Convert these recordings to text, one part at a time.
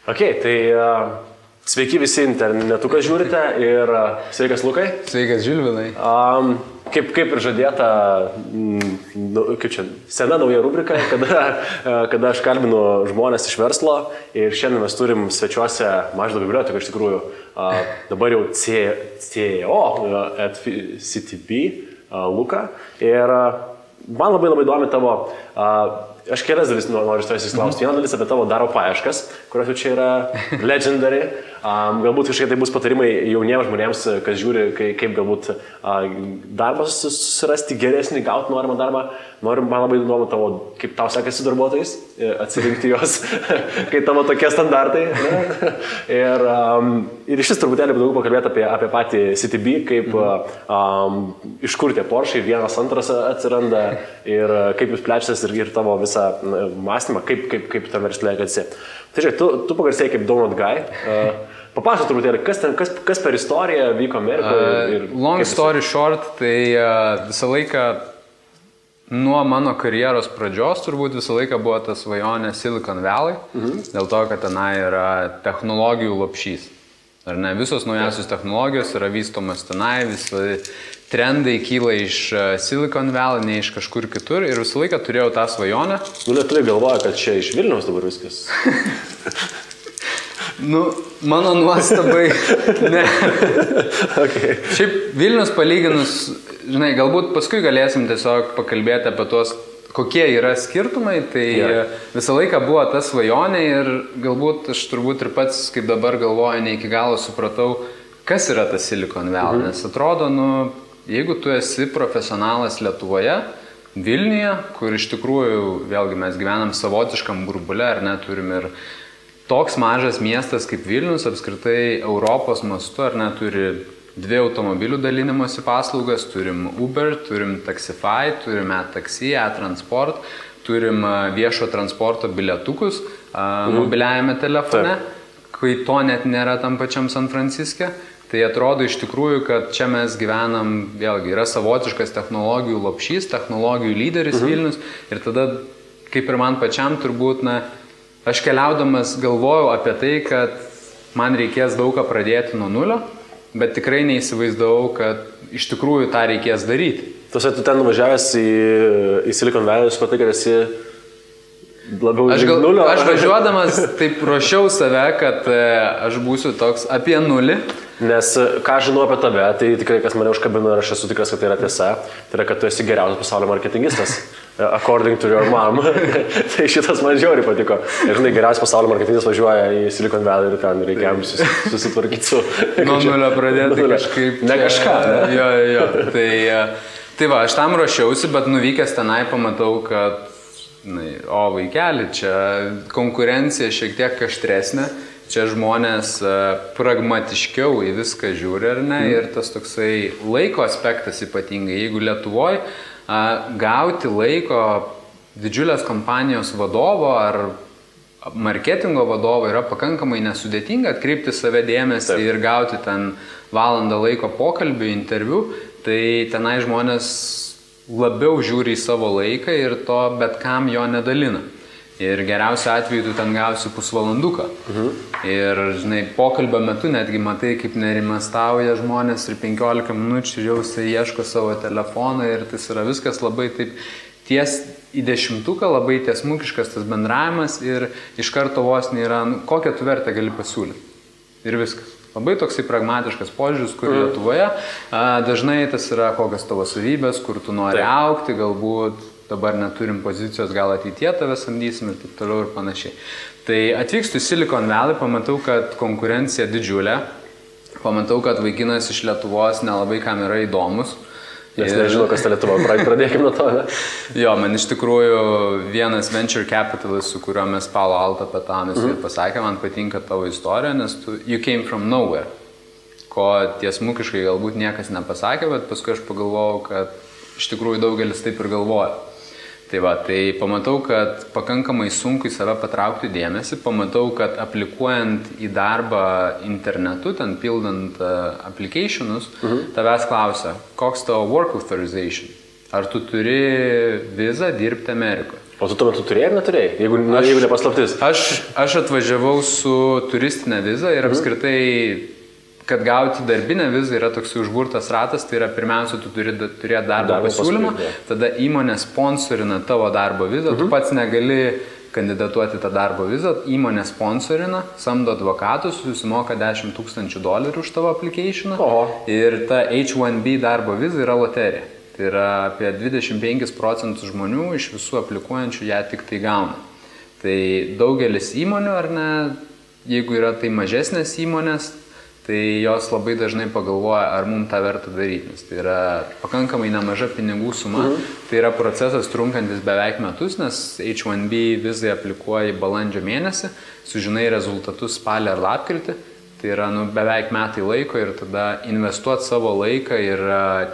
Ok, tai sveiki visi internetu, kas žiūrite ir sveikas Lukai. Sveikas Žilvinai. Kaip ir žadėta, kaip čia, sena nauja rubrika, kada aš kalbinu žmonės iš verslo ir šiandien mes turim svečiuose Mažvydo biblioteką, iš tikrųjų, dabar jau CEO at CTB Luka. Ir man labai įdomi tavo, aš kelias dalis noriu iš tavęs įsiklausti. Viena dalis apie tavo darbo paieškas, kurios jau čia yra legendary. Galbūt kažkiek tai bus patarimai jauniems žmonėms, kas žiūri, kaip galbūt darbas susirasti geresnį, gauti norimą darbą. Man labai įdomu tavo, kaip tau sekasi darbuotojais, atsirinkti juos, kai tavo tokie standartai. Ir iš vis truputėlį daugiau pakalbėti apie patį CTB, kaip iš kur tie Porsche, vienas, antras atsiranda ir kaip jūs plečiatės ir tavo visą mąstymą, kaip tam verslė esi. Tai žiūrėk, tu pagarsėjai kaip Donut Guy. Papasakok truputėlį, kas per istoriją vyko Amerikoje? Long story short, tai visą laiką nuo mano karjeros pradžios turbūt visą laiką buvo ta svajonė Silicon Valley, dėl to, kad tenai yra technologijų lopšys. Ar ne, visos naujausios technologijos yra vystomas tenai, visi trendai kyla iš Silicon Valley, ne iš kažkur kitur ir visą laiką turėjau tą svajonę. Lietuviai galvoja, kad čia iš Vilniaus dabar viskas. Mano nuostabai, ne. Okay. Šiaip Vilnius palyginus, žinai, galbūt paskui galėsim tiesiog pakalbėti apie tuos, kokie yra skirtumai, tai visą laiką buvo ta svajonė ir galbūt aš turbūt ir pats, kaip dabar galvoju, ne iki galo supratau, kas yra tas Silicon Valley, nes atrodo, jeigu tu esi profesionalas Lietuvoje, Vilniuje, kur iš tikrųjų, vėlgi mes gyvenam savotiškam burbule, ar ne, turim ir toks mažas miestas kaip Vilnius, apskritai Europos mastu, ar ne, turi 2 automobilių dalinimosi paslaugas, turim Uber, turim Taxify, turim e-taxi, e-transport, turim viešo transporto bilietukus mobiliajame telefone, kai to net nėra tam pačiam San Franciske. Tai atrodo iš tikrųjų, kad čia mes gyvenam, vėlgi, yra savotiškas technologijų lopšys, technologijų lyderis Vilnius ir tada, kaip ir man pačiam turbūt, aš keliaudamas galvojau apie tai, kad man reikės daug ką pradėti nuo nulio, bet tikrai neįsivaizdavau, kad iš tikrųjų tą reikės daryti. Tu ten nuvažiavęs į Silicon Valley, supratai, kad esi labiau nulio? Aš važiuodamas taip ruošiau save, kad aš būsiu toks apie nulį. Nes ką žinau apie tave, tai tikrai kas mane užkabino ir aš esu tikras, kad tai yra tiesa, tai yra, kad tu esi geriausias pasaulio marketingistas. According to your mom. Tai šitas man žiauriai patiko. Ir žinai, geriausias pasaulio marketingistas važiuoja į Silicon Valley ir ten reikia jam susitvarkyti su... Nuo nulio pradėti kažkaip... Ne kažką, ne? Jo. Tai va, aš tam ruošiausi, bet nuvykęs tenai pamatau, kad vaikeli, čia konkurencija šiek tiek aštresnė. Čia žmonės pragmatiškiau į viską žiūri, ar ne? Ir tas toksai laiko aspektas ypatingai. Jeigu Lietuvoje gauti laiko didžiulės kompanijos vadovo ar marketingo vadovo yra pakankamai nesudėtinga, atkreipti save dėmesį ir gauti ten valandą laiko pokalbių, interviu, tai tenai žmonės labiau žiūri į savo laiką ir to bet kam jo nedalina. Ir geriausiu atveju tu ten gausi pusvalanduką. Ir, žinai, pokalbio metu netgi matai, kaip nerimastauja žmonės ir 15 minučių jau jisai ieško savo telefoną ir tas yra viskas labai taip ties į dešimtuką, labai tiesmukiškas tas bendravimas ir iš karto vos nėra, kokią tu vertę gali pasiūlyti. Ir viskas. Labai toksai pragmatiškas požiūris, kur Lietuvoje dažnai tas yra kokios tavo savybės, kur tu nori augti, galbūt dabar neturim pozicijos, gal ateitie tave samdysim ir taip toliau ir panašiai. Tai atvykstu į Silicon Valley, pamatau, kad konkurencija didžiulė, pamatau, kad vaikinas iš Lietuvos nelabai kam yra įdomus. Nes nežinau, kas ta Lietuva, pradėkime nuo to, ne? Jo, man iš tikrųjų vienas venture capitalist, su kuriuo mes Palo Alto petamis ir pasakė, man patinka tavo istorija, nes you came from nowhere, ko tiesmukiškai galbūt niekas nepasakė, bet paskui aš pagalvojau, kad iš tikrųjų daugelis taip ir galvoja. Tai pamatau, kad pakankamai sunku į save patraukti dėmesį, pamatau, kad aplikuojant į darbą internetu, ten pildant applicationus, tavęs klausia, koks tavo work authorization? Ar tu turi vizą dirbti Amerikoje? O tu tuo metu turėjai ar neturėjai, jeigu nepaslaptis? Aš atvažiavau su turistinė viza ir apskritai, kad gauti darbinę vizą yra toks užburtas ratas, tai yra pirmiausia, tu turi turėti darbo pasiūlymą, tada įmonė sponsorina tavo darbo vizą, tu pats negali kandidatuoti tą darbo vizą, įmonė sponsorina, samdo advokatus, susimoka $10,000 už tavo applicationą ir ta H1B darbo viza yra loterija. Tai yra apie 25% žmonių iš visų aplikuojančių ją tik tai gauna. Tai daugelis įmonių, ar ne, jeigu yra tai mažesnės įmonės, tai jos labai dažnai pagalvoja, ar mums tą verta daryti, nes tai yra pakankamai nemaža pinigų suma, tai yra procesas trunkantis beveik metus, nes H1B vizai aplikuoji balandžio mėnesį, sužinai rezultatus spalį ar lapkritį, tai yra beveik metai laiko ir tada investuoti savo laiką ir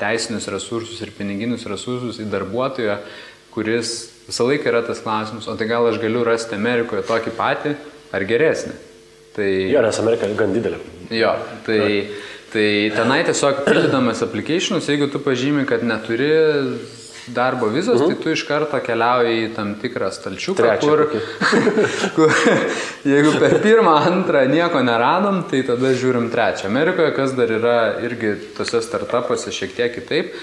teisinius resursus ir piniginius resursus į darbuotoją, kuris visą laiką yra tas klausimas, o tai gal aš galiu rasti Amerikoje tokį patį ar geresnį. Tai... Jo, nes Amerika gan didelė. Jo, tai tenai tiesiog pildydamas applicationus, jeigu tu pažymi, kad neturi darbo vizos, tai tu iš karto keliauji į tam tikrą stalčiuką, kur jeigu per pirmą, antrą nieko neradom, tai tada žiūrim trečią. Amerikoje, kas dar yra irgi tose startupuose šiek tiek kitaip,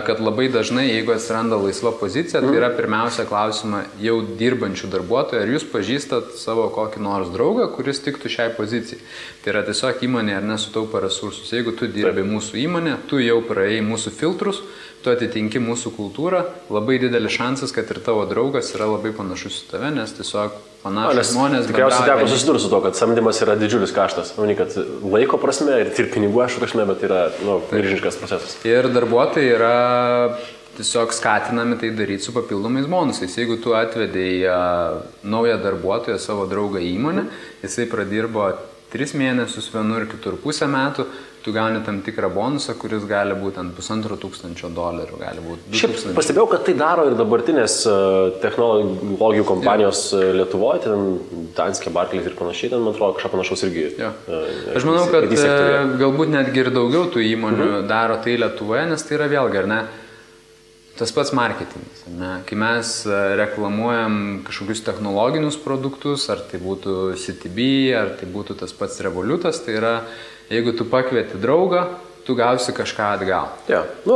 kad labai dažnai, jeigu atsiranda laisva pozicija, tai yra pirmiausia klausima jau dirbančių darbuotojų, ar jūs pažįstat savo kokį nors draugą, kuris tiktų šiai pozicijai. Tai yra tiesiog įmonė ar nesutaupa resursus. Jeigu tu dirbi mūsų įmonė, tu jau praėjai mūsų filtrus, tu atitinki mūsų kultūrą, labai didelis šansas, kad ir tavo draugas yra labai panašus į tave, nes tiesiog panašus žmonės... Tikriausiai teko susidurti su to, kad samdymas yra didžiulis kaštas. Ne kad laiko prasme ir pinigų aš prasme, bet yra milžiniškas procesas. Ir darbuotojai yra tiesiog skatinami tai daryti su papildomais bonusais. Jeigu tu atvedei naują darbuotoją, savo draugą į įmonę, jisai pradirbo 3 mėnesius vienur, kitur pusę metų, tu gauni tam tikrą bonusą, kuris gali būti ant $1,500, gali būti 2,000. Šiaip pastebėjau, kad tai daro ir dabartinės technologijų kompanijos Lietuvoje, ten Danske, Barclays ir panašiai, ten, man atrodo, kažką panašaus irgi. Aš manau, kad galbūt netgi ir daugiau tų įmonių daro tai Lietuvoje, nes tai yra vėlgi, ar ne, tas pats marketingas. Kai mes reklamuojam kažkokius technologinius produktus, ar tai būtų CTB, ar tai būtų tas pats Revolutas, tai yra, jeigu tu pakvieti draugą, tu gausi kažką atgal.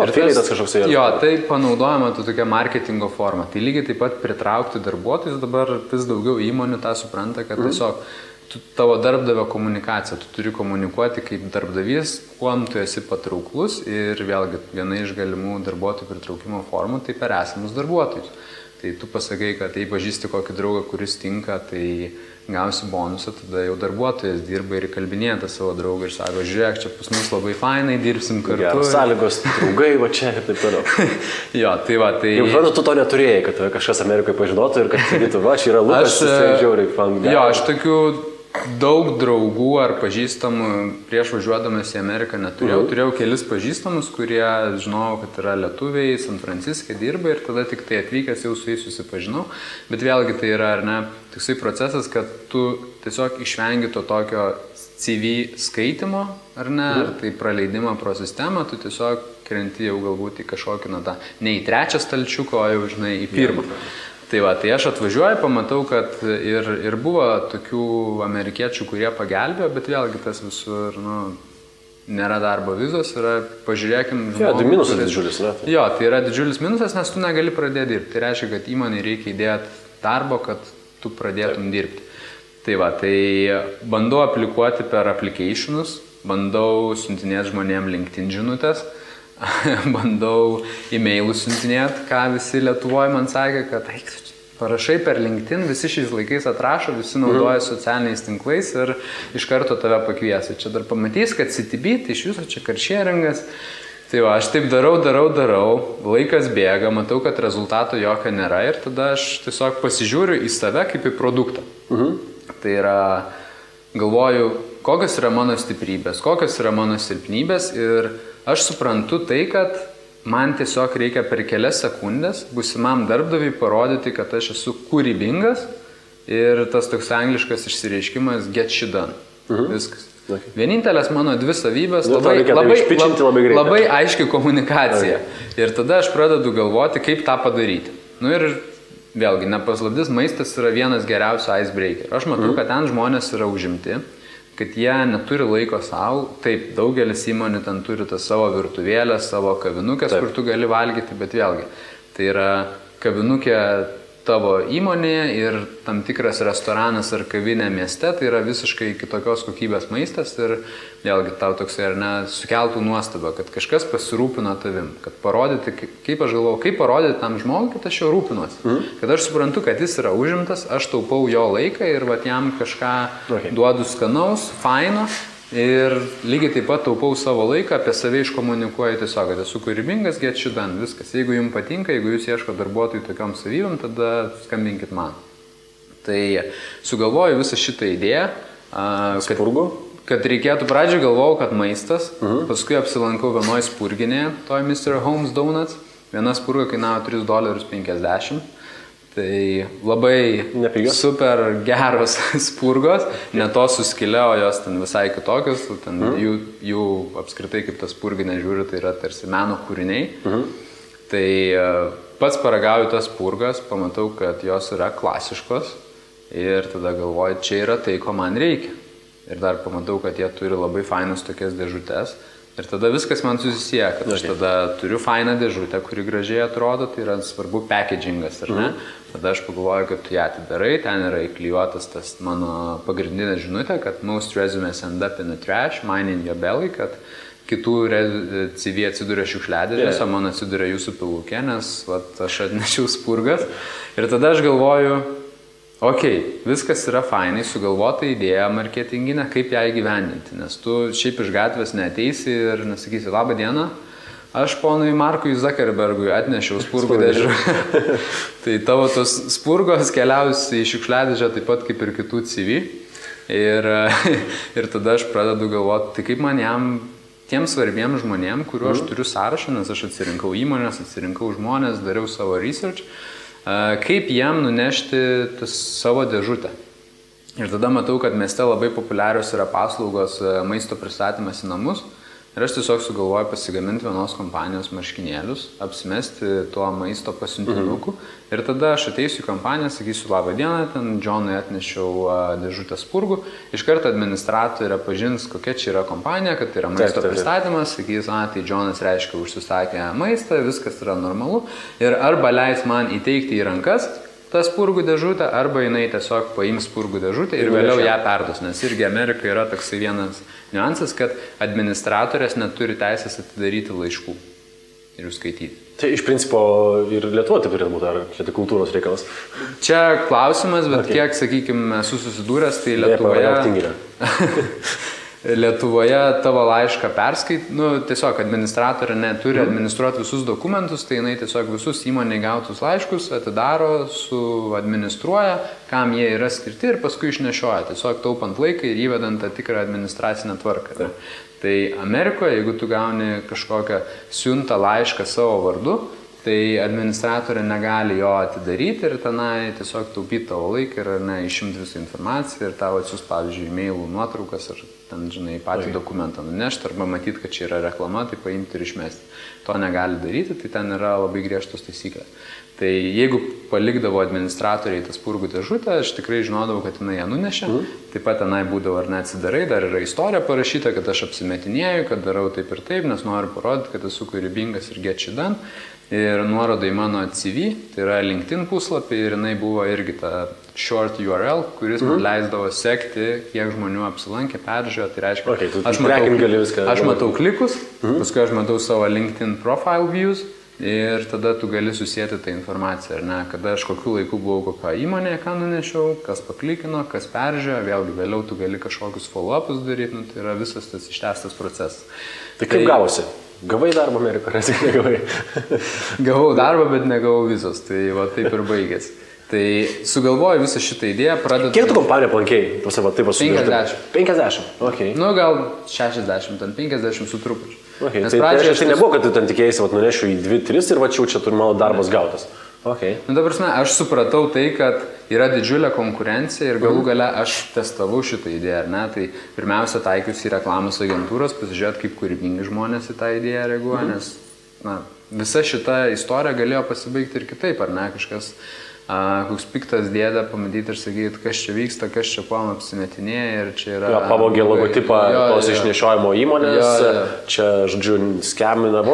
Afiliatas kažkoks yra. Jo, tai panaudojama tokia marketingo forma. Tai lygiai taip pat pritraukti darbuotojus, dabar vis daugiau įmonių tą supranta, kad tiesiog tavo darbdavio komunikacija, tu turi komunikuoti kaip darbdavys, kuom tu esi patrauklus ir vėlgi viena iš galimų darbuotojų pritraukimo formų tai per esamus darbuotojus. Tai tu pasakai, kad jei pažįsti kokį draugą, kuris tinka, tai gausi bonusą, tada jau darbuotojas dirba ir kalbinėja tą savo draugą ir sako, žiūrėk, čia pas mus labai fainai, dirbsim kartu. Geras sąlygos, draugai, va čia ir taip toliau. Jo, tai va, tai... Jau žodžiu, tu to neturėjai, kad kažkas Amerikoje pažinotų ir kad sakytų, va, čia yra Lukas, tai žiauriai fan. Jo, aš tokių daug draugų ar pažįstamų prieš važiuodamas į Ameriką neturėjau. Turėjau kelis pažįstamus, kurie žinojau, kad yra lietuviai, San Franciske dirba ir tada tik tai atvykęs jau su jais susipažinau. Bet vėlgi tai yra, ar ne, toksai procesas, kad tu tiesiog išvengi to tokio CV skaitimo, ar ne, ar tai praleidimą pro sistemą, tu tiesiog krenti jau galbūt į kažkokį, ne į trečią stalčiuką, o jau, žinai, į pirmą. Tai va, tai aš atvažiuoju, pamatau, kad ir buvo tokių amerikiečių, kurie pagelbėjo, bet vėlgi tas visur, nėra darbo vizos, yra, pažiūrėkim... Jo, tai minusas didžiulis, ne? Jo, tai yra didžiulis minusas, nes tu negali pradėti dirbti. Tai reiškia, kad įmonei reikia įdėti darbo, kad tu pradėtum dirbti. Tai va, tai bandau aplikuoti per applicationus, bandau siuntinėti žmonėm LinkedIn žinutės, bandau e-mailus siuntinėti, ką visi Lietuvoje man sakė, kad parašai per LinkedIn, visi šiais laikais atrašo, visi naudoja socialiniais tinklais ir iš karto tave pakviesi. Čia dar pamatys, kad CTB, tai iš viso čia karšėringas. Tai va, aš taip darau, laikas bėga, matau, kad rezultato jokio nėra ir tada aš tiesiog pasižiūriu į save kaip į produktą. Tai yra, galvoju, kokios yra mano stiprybės, kokios yra mano silpnybės ir aš suprantu tai, kad man tiesiog reikia per kelias sekundės būsimam darbdaviui parodyti, kad aš esu kūrybingas ir tas toks angliškas išsireiškimas get shit done. Viskas. Vienintelės mano 2 savybės labai aiški komunikacija. Ir tada aš pradedu galvoti, kaip tą padaryti. Ir vėlgi, nepaslaptis, maistas yra vienas geriausių icebreaker. Aš matau, kad ten žmonės yra užimti, kad jie neturi laiko savo. Taip, daugelis įmonių ten turi tas savo virtuvėlę, savo kavinukės, kur tu gali valgyti, bet vėlgi, tai yra kavinukė tavo įmonėje ir tam tikras restoranas ar kavinė mieste, tai yra visiškai kitokios kokybės maistas ir vėlgi tau toksai ar ne sukeltų nuostabą, kad kažkas pasirūpino tavim, kad parodyti, kaip aš galvoju, kaip parodyti tam žmogui, kad aš jo rūpinuosi, kad aš suprantu, kad jis yra užimtas, aš taupau jo laiką ir vat jam kažką duodu skanaus, faino. Ir lygiai taip pat taupau savo laiką, apie save iškomunikuoju tiesiog, kad esu kūrybingas, get shit done, viskas. Jeigu jums patinka, jeigu jūs ieško darbuotojų tokiom savybėm, tada skambinkit man. Tai sugalvoju visą šitą idėją, kad reikėtų, pradžioj galvojau, kad maistas, paskui apsilankau vienoj spurginėje, toj Mr. Holmes Donuts, viena spurga kainavo $3.50. Tai labai nepigios, super geros spurgos, ne to suskilė, o jos ten visai kitokios, ten jų apskritai kaip tas spurginė žiūri, tai yra tarsi meno kūriniai. Tai pats paragauju tas spurgas, pamatau, kad jos yra klasiškos ir tada galvoju, čia yra tai, ko man reikia. Ir dar pamatau, kad jie turi labai fainas tokias dėžutės. Ir tada viskas man susisieja, kad aš tada turiu fainą dėžutę, kuri gražiai atrodo, tai yra svarbu packagingas, ar ne? Tada aš pagalvoju, kad tu ją atidarai, ten yra įklijuotas tas mano pagrindinė žinutė, kad most resumes end up in the trash, mine in your belly, kad kitų CV atsiduria šiukšliadėžės, o man atsiduria jūsų pilukė, nes vat, aš atnešiau spurgas. Ir tada aš galvoju, viskas yra fainai, sugalvota idėja marketinginė, kaip ją įgyvendinti, nes tu šiaip iš gatvės neateisi ir nesakysi, labą dieną, aš ponui Markui Zuckerbergui atnešiau spurgų dėžų. Tai tavo tos spurgos keliausi į šiukšliadėžę taip pat kaip ir kitų CV. Ir tada aš pradedu galvoti, tai kaip man jam, tiem svarbiem žmonėm, kuriuo aš turiu sąrašą, nes aš atsirinkau įmonės, atsirinkau žmonės, dariau savo research, kaip jam nunešti savo dėžutę. Ir tada matau, kad mieste labai populiarios yra paslaugos maisto pristatymas į namus. Ir aš tiesiog sugalvoju pasigaminti vienos kompanijos marškinėlius, apsimesti tuo maisto pasiuntinuku. Ir tada aš ateisiu į kompaniją, sakysiu, labą dieną, ten Džonui atnešiau dėžutę spurgų. Iš karto administratorė pažins, kokia čia yra kompanija, kad tai yra maisto pristatymas. Sakys, tai Džonas reiškia užsisakė maistą, viskas yra normalu. Ir arba leis man įteikti į rankas tą spurgų dėžutę, arba jinai tiesiog paims spurgų dėžutę ir vėliau ją perduos. Nes irgi Amerikai yra toksai vienas niuansas, kad administratorės neturi teisės atidaryti laiškų ir jų skaityti. Tai iš principo ir Lietuva taip turėtų būti, ar čia tai kultūros reikalas? Čia klausimas, bet kiek, sakykime, esu susidūręs, tai Lietuvoje tavo laišką perskait, tiesiog administratorė neturi administruoti visus dokumentus, tai jinai tiesiog visus įmonėje gautus laiškus atidaro, administruoja, kam jie yra skirti ir paskui išnešioja, tiesiog taupant laiką ir įvedant tą tikrą administracinę tvarką. Tai Amerikoje, jeigu tu gauni kažkokią siuntą laišką savo vardu, tai administratorė negali jo atidaryti ir tenai tiesiog taupyti tavo laiką ir išimti visą informaciją ir tavo atsiųs, pavyzdžiui, e-mailų nuotraukas ar ten, žinai, patį dokumentą nunešti arba matyti, kad čia yra reklama, tai paimti ir išmesti. To negali daryti, tai ten yra labai griežtos taisyklės. Tai jeigu palikdavo administratoriai tą spurgų dėžutę, aš tikrai žinodavau, kad jinai ją nunešė. Taip pat tenai būdavo ar neatsidarai, dar yra istorija parašyta, kad aš apsimetinėju, kad darau taip ir taip, nes noriu parodyti, kad esu kūrybingas ir get shit done. Ir nuoroda į mano CV, tai yra LinkedIn puslapį ir jinai buvo irgi ta short URL, kuris man leisdavo sekti, kiek žmonių apsilankė, peržiūrėjo, tai reiškia, aš matau klikus, paskui aš matau savo LinkedIn profile views ir tada tu gali susijęti tą informaciją, ar ne, kada aš kokiu laiku buvau kokio įmonėje, ką nunešiau, kas paklikino, kas peržiūrėjo, vėlgi vėliau tu gali kažkokius follow-upus daryti, tai yra visas tas ištęstas procesas. Tai kaip gavosi? Gavai darbą Amerikoje, ar negavai? Gavau darbą, bet negavau vizos, tai va taip ir baigėsi. Tai sugalvoju visą šitą idėją, pradedu... Kiek tu kompaniją aplankėjai? 50. 50? Ok. Gal 60, ten 50 su trupučiu. Okay. Tai nebuvo, kad tu ten tikėjai, nunešiu į 2-3 ir čia turi mano darbas gautas. Okay. Dabar, aš supratau tai, kad yra didžiulė konkurencija ir galų gale aš testavau šitą idėją, ar ne? Tai pirmiausia taikiausi į reklamos agentūros, pasižiūrėti, kaip kūrybingi žmonės į tą idėją reaguoja, nes visa šita istorija galėjo pasibaigti ir kitaip, ar ne? Kažkas koks piktas dėdė pamatyti ir sakyti, kas čia vyksta, kas čia kuom apsimetinėja ir čia yra... Pavogė logotipą tos išnešiojimo įmonės, čia, žodžiu, skemina,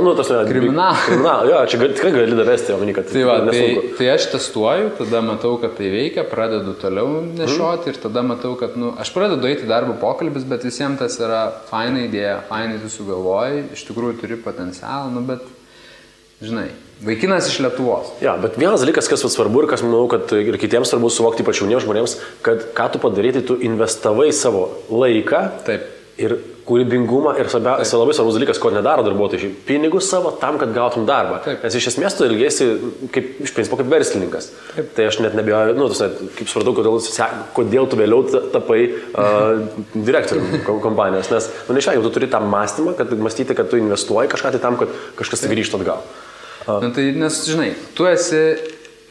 kriminalą. Jo, čia tikrai gali davesti, manį, kad nesunku. Tai aš testuoju, tada matau, kad tai veikia, pradedu toliau nešioti ir tada matau, kad, aš pradedu eiti darbo pokalbis, bet visiems tas yra faina idėja, fainai tu sugalvoji, iš tikrųjų turi potencialą, bet, žinai, vaikinas iš Lietuvos. Ja, bet vienas dalykas, kas svarbu ir kas manau, kad ir kitiems svarbu suvokti, ypač jauniems žmonėms, kad ką tu padarai, tai tu investavai savo laiką. Taip. Ir kūrybingumą ir svarbiausia, labai svarbus dalykas, ko nedaro darbuotojai, pinigus savo tam, kad gautum darbą. Taip. Nes iš esmės tu ilgėsi iš principo kaip verslininkas. Taip. Tai aš net nebijoju, kaip supratau, kodėl tu vėliau tapai direktoriumi kompanijos. Nes, neišvengiamai, tu turi tą mąstymą, kad mąstyti, kad tu investuoji kažką tai tam, kad kažkas grįžtų atgal. Tai nes, žinai,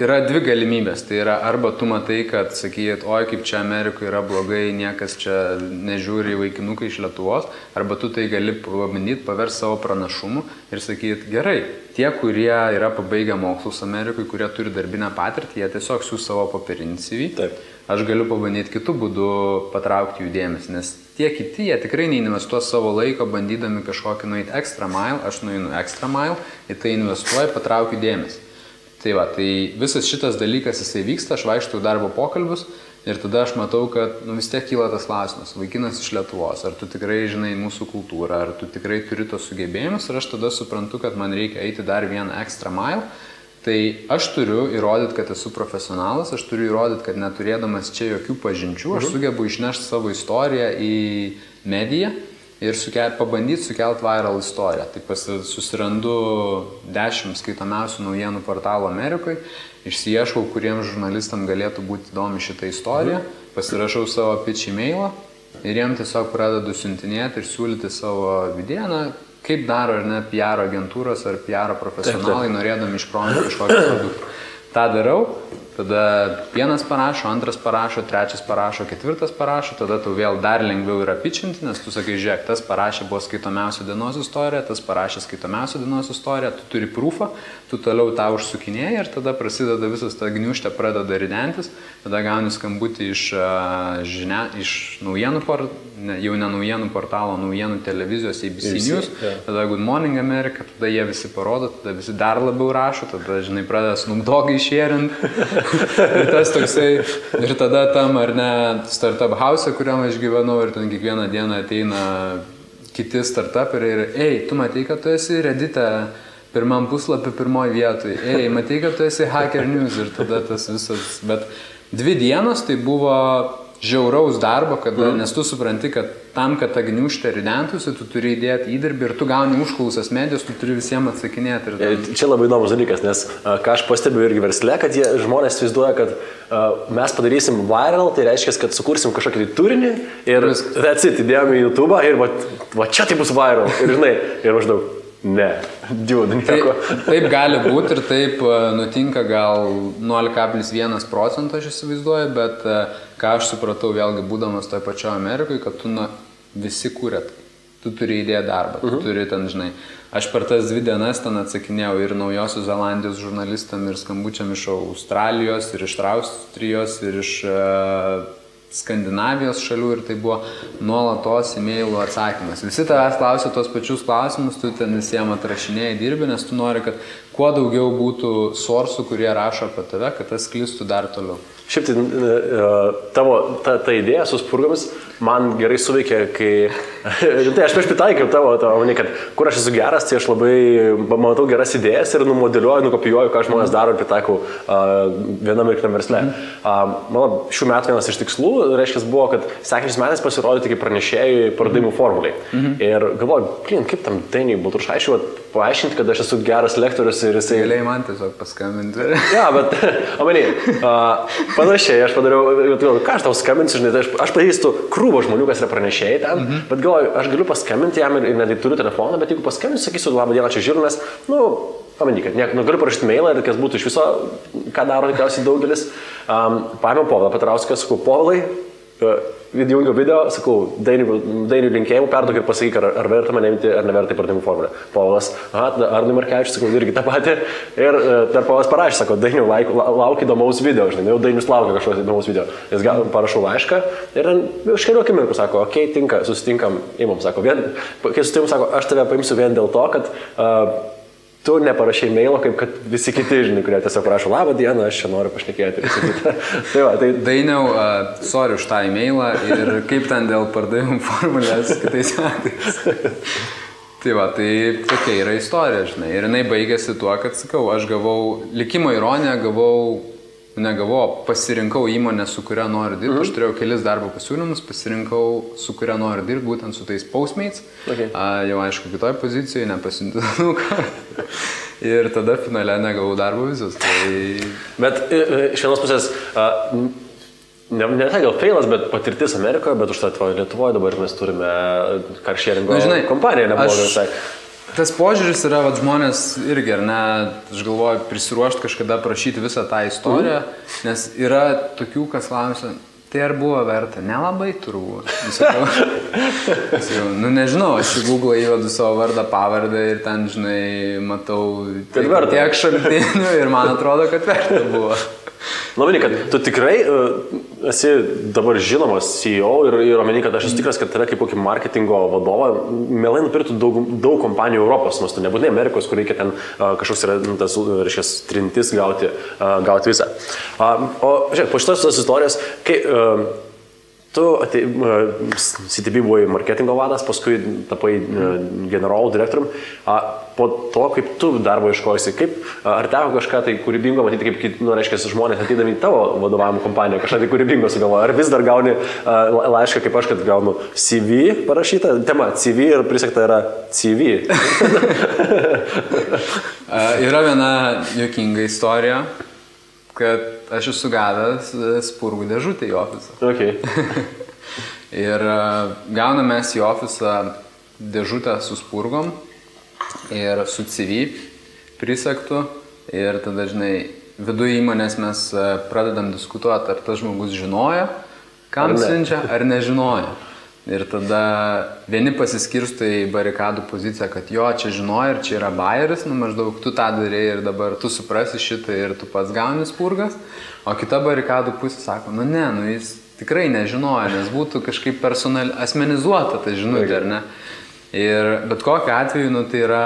yra dvi galimybės. Tai yra arba tu matai, kad sakyt, oi, kaip čia Amerikoje yra blogai, niekas čia nežiūri vaikinukai iš Lietuvos, arba tu tai gali pabandyti paversti savo pranašumu ir sakyt, gerai, tie, kurie yra pabaigę mokslus Amerikoje, kurie turi darbinę patirtį, jie tiesiog siūs savo popierinį CV. Taip. Aš galiu pabandyti kitų būdų patraukti jų dėmesį, nes tie kiti, jie tikrai neinvestuos savo laiko bandydami kažkokį nueiti extra mile, aš nueinu extra mile, į tai investuoju, patraukiu dėmesį. Tai visas šitas dalykas jisai vyksta, aš vaikštau darbo pokalbius ir tada aš matau, kad vis tiek kyla tas klausimas, vaikinas iš Lietuvos, ar tu tikrai žinai mūsų kultūrą, ar tu tikrai turi tos sugebėjimus ir aš tada suprantu, kad man reikia eiti dar vieną extra mile. Tai aš turiu įrodyti, kad esu profesionalas, aš turiu įrodyti, kad neturėdamas čia jokių pažinčių, aš sugebu išnešti savo istoriją į mediją ir pabandyti sukelti viral istoriją. Tai susirandu 10 skaitomiausių naujienų portalų Amerikoje, išsiieškau, kuriems žurnalistam galėtų būti įdomi šitą istoriją, pasirašau savo pitch e-mailą ir jiem tiesiog pradedu siuntinėti ir siūlyti savo vidieną, kaip daro ar ne PR agentūros ar PR profesionalai, norėdami išprominti kažkokį produktą. Ta darau, tada vienas parašo, antras parašo, trečias parašo, ketvirtas parašo, tada tau vėl dar lengviau yra pitchinti, nes tu sakai, žiūrėk, tas parašė buvo skaitomiausia dienos istorija, tas parašė skaitomiausia dienos istorija, tu turi prūfą, tu toliau tą užsukinėjai ir tada prasideda visas ta gniuštė, pradeda ridentis, tada gauni skambutį iš naujienų jau ne naujienų portalo, naujienų televizijos ABC News, tada Good Morning America, tada jie visi parodo, tada visi dar labiau rašo, tada, žinai, pradeda Snoop Doggą išėrint. Ir tas toksai, ir tada tam, ar ne, startup house, kuriam aš gyvenau, ir ten kiekvieną dieną ateina kiti startuperiai ir, tu matai, kad tu esi Reddit'e pirmam puslapį pirmoji vietoj, matai, kad tu esi Hacker News ir tada tas visas, bet 2 dienos tai buvo žiauraus darbo, nes tu supranti, kad tam, kad ta gniuštė ridentųsi, tu turi įdėti įdirbį ir tu gauni užklausas medijos, tu turi visiems atsakinėti. Čia labai įdomus dalykas, nes ką aš pastebiu irgi versle, kad žmonės įsivaizduoja, kad mes padarysim viral, tai reiškia, kad sukursim kažkokį turinį ir įdėjome į YouTube ir va čia tai bus viral. Ir žinai, ir maždaug. Ne, džiūdų nieko. Taip gali būti ir taip nutinka gal 0,1% aš įsivaizduoju, bet ką aš supratau vėlgi būdamas toje pačioje Amerikoje, kad tu visi kūrėt, tu turi įdėti darbą, tu turi ten, žinai. Aš per tas 2 dienas ten atsakinėjau ir Naujosios Zelandijos žurnalistam ir skambučiam iš Australijos ir iš Austrijos ir iš Skandinavijos šalių ir tai buvo nuolatos e-mailų atsakymas. Visi tavęs klausia tos pačius klausimus, tu ten visiems atrašinėjai dirbi, nes tu nori, kad kuo daugiau būtų sourcų, kurie rašo apie tave, kad tas sklistų dar toliau. Šiaip tai tavo ta idėja su spurgomis man gerai suveikė, kai... Tai aš prieš pritaikiau tavo, kad kur aš esu geras, tai aš labai matau geras idėjas ir numodeliuoju, nukopijuoju, ką žmonės daro ir pritaikau vienam ir kitam versle. Mano šių metų vienas iš tikslų, reiškia, buvo, kad sekančiais metais pasirodyti kaip pranešėjai pardavimų formuliai. Ir galvoju, kaip tam Dainiui Baltrušaičiui paaiškinti, kad aš esu geras lektorius ir jisai... Galėjai man tiesiog paskambinti. Ja, bet, panašiai, aš padariau, ką aš tau skambinsiu, žinai, aš pažįstu krūvą žmonių, kas yra pranešėjai ten, bet galvoju, aš galiu paskambinti jam ir netgi turiu telefoną, bet jeigu paskambinsiu, sakysiu, labą dieną, čia žiūriu, nes, pamanyk, kad galiu parašyti mailą ir kas būtų iš viso, ką daro tikriausiai daugelis. Paėmiau Povilą Petrauską, sakau, Povilai, įjungiau video, sakau, Dainių linkėjimų perduok ir pasakyk, ar verta mane imti, ar neverta į pardavimų formulę. Povilas, Arnui Markevičius, sakau, irgi tą patį. Ir dar Povilas parašė, sako, Dainių lauk įdomaus video, žinai, jau Dainius laukia kažkokio įdomaus video. Jis parašau laišką ir už kelių akimirkų sako, okei, tinka, susitinkam, imam, sako, kai susitinkam, sako, aš tave paimsiu vien dėl to, kad tu neparašai mailo, kaip kad visi kiti, žinai, kurie tiesiog prašo, labą dieną, aš čia noriu pašnekėti. Tai Dainiau, sorry už tą e-mailą ir kaip ten dėl pardavimų formulės kitais metais. Tai va, tai tokia yra istorija, žinai. Ir jinai baigėsi tuo, kad, sakau, aš gavau, likimo ironiją pasirinkau įmonę, su kuria noriu dirbti. Aš turėjau kelis darbo pasiūlymus, pasirinkau, su kuria noriu dirbti, būtent su tais Postmates. Okay. Jau aišku, kitoj pozicijoje, nepasiuntinuką. Ir tada finale negavau darbo vizos. Tai... Bet iš vienos pusės, ne tai gal failas, bet patirtis Amerikoje, bet už tai Lietuvoje dabar mes turime carsharingo kompaniją, neblogai visai. Tas požiūris yra, vat, žmonės irgi, ar ne, aš galvoju, prisiruošti kažkada prašyti visą tą istoriją, nes yra tokių, kas klausia, tai ar buvo verta? Nelabai turbūt. Nežinau, aš į Google įvedu savo vardą, pavardę ir ten, žinai, matau tiek šaltinių ir man atrodo, kad verta buvo. Labai, kad tu tikrai esi dabar žinomas CEO ir omeny, kad aš esu tikras, kad tave kaip kokį marketingo vadovą mielai nupirktų daug kompanijų Europos, nors tu nebūtinai Amerikos, kur reikia ten kažkoks yra tas, reiškia, trintis gauti visą. O, žiūrėk, po šitos istorijos, kai tu CTB buvai marketingo vadas, paskui tapai generolų direktorium. Po to, kaip tu darbo ieškojusi, ar teko kažką tai kūrybingo matyti, kaip, reiškia, žmonės atydami į tavo vadovavimo kompaniją, kažką tai kūrybingo sugalvoja, ar vis dar gauni laišką, kaip aš, kad gaunu CV parašytą, tema CV ir prisegta yra CV. Yra viena juokinga istorija, kad aš esu gavęs spurgų dėžutę į ofisą. Okay. Ir gauname į ofisą dėžutę su spurgom ir su CV prisegtų. Ir tada, žinai, viduje įmonės mes pradedam diskutuoti, ar tas žmogus žinojo, kam siunčia, ar nežinojo. Ir tada vieni pasiskirsto į barikadų poziciją, kad jo, čia žinojo ir čia yra bajeris, maždaug tu tą darėjai ir dabar tu suprasi šitą ir tu pats gauni spurgas, o kita barikadų pusė sako, jis tikrai nežinojo, nes būtų kažkaip asmenizuota ta žinutė, ar ne? Ir bet kokiu atveju, tai yra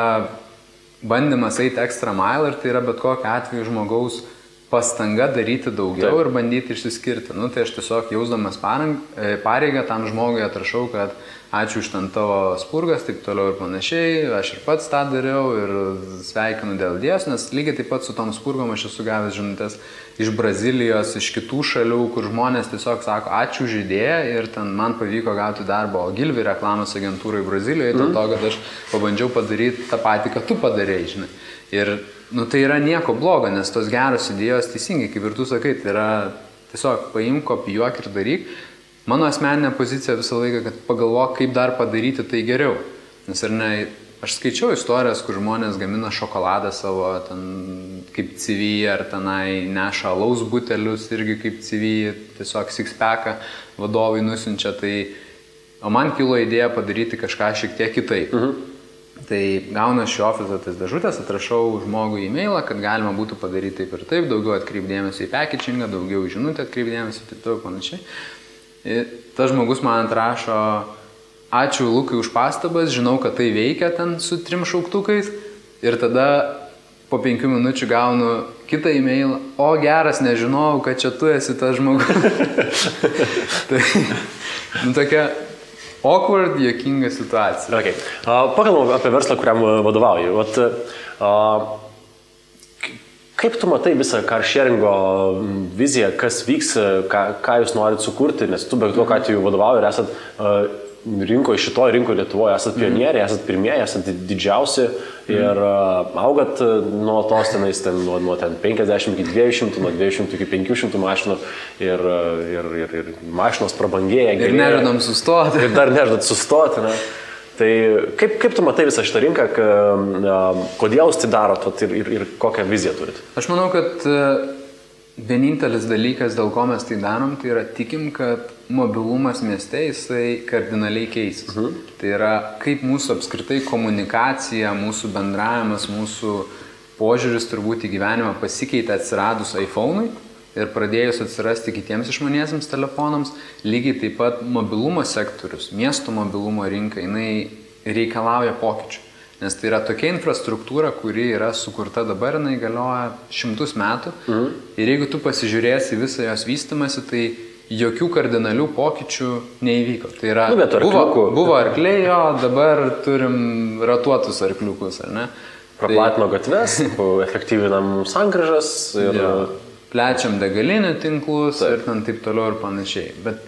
bandymas eiti extra mile ir tai yra bet kokiu atveju žmogaus pastanga daryti daugiau ir bandyti išsiskirti. Tai aš tiesiog jausdamas pareigą tam žmogui atrašau, kad ačiū už ten tavo spurgas, taip toliau ir panašiai, aš ir pats tą dariau ir sveikinu dėl Dievs, nes lygiai taip pat su tom spurgom aš esu gavęs žinutės iš Brazilijos, iš kitų šalių, kur žmonės tiesiog sako ačiū už idėją ir ten man pavyko gauti darbą Ogilvy reklamos agentūrai Brazilijoje, dėl to, kad aš pabandžiau padaryti tą patį, kad tu padarėjai, žinai. Ir tai yra nieko blogo, nes tos geros idėjos teisingai, kaip ir tu sakai, tai yra tiesiog paimk, kopijuok ir daryk. Mano asmeninė pozicija visą laiką, kad pagalvok, kaip dar padaryti tai geriau. Nes ar ne, aš skaičiau istorijas, kur žmonės gamina šokoladą savo ten, kaip CV, ar tenai neša alaus butelius irgi kaip CV, tiesiog six-packą vadovai nusiunčia. O man kilo idėja padaryti kažką šiek tiek kitaip. Tai gaunu iš ofiso tas dėžutės, atrašau žmogui e-mailą, kad galima būtų padaryti taip ir taip, daugiau atkreipdėmėsi į packagingą, daugiau žinutę atkreipdėmėsi ir taip toliau panašiai. Ir tas žmogus man atrašo, ačiū Lukai už pastabas, žinau, kad tai veikia ten su 3 šauktukais ir tada po 5 minučių gaunu kitą e-mailą, o geras, nežinojau, kad čia tu esi tas žmogus. Tai tokia awkward, juokinga situacija. Okay. Pakalbam apie verslą, kuriam vadovauji. Kaip tu matai visą carsharingo viziją, kas vyks, ką jūs norit sukurti, nes tu be to, ką tu vadovauji ir esat šitoje rinkoje Lietuvoje, esat pionieriai, esat pirmieji, esat didžiausi ir augat nuo tos tenais, nuo 50 iki 200, nuo 200 iki 500 mašinų ir mašinos prabangėja. Ir nežadam sustoti. Ir dar nežadat sustoti. Ne? Tai kaip tu matai visą šitą rinką, kodėl jūs tai darot ir kokią viziją turit? Aš manau, kad vienintelis dalykas, dėl ko mes tai darom, tai yra tikim, kad mobilumas mieste jisai kardinaliai keisis. Tai yra, kaip mūsų apskritai komunikacija, mūsų bendravimas, mūsų požiūris turbūt į gyvenimą pasikeitė atsiradus iPhone'ui ir pradėjus atsirasti kitiems išmaniesiems telefonams, lygiai taip pat mobilumo sektorius, miesto mobilumo rinka, jinai reikalauja pokyčių. Nes tai yra tokia infrastruktūra, kuri yra sukurta dabar, jinai galioja 100 metų. Ir jeigu tu pasižiūrėsi visą jos vystimąsi, tai jokių kardinalių pokyčių neįvyko. Tai yra, buvo arkliai, jo, dabar turim ratuotus arkliukus, ar ne? Praplatino gatves, efektyvinam sankryžas ir... Plečiam degalinių tinklus ir taip toliau ir panašiai. Bet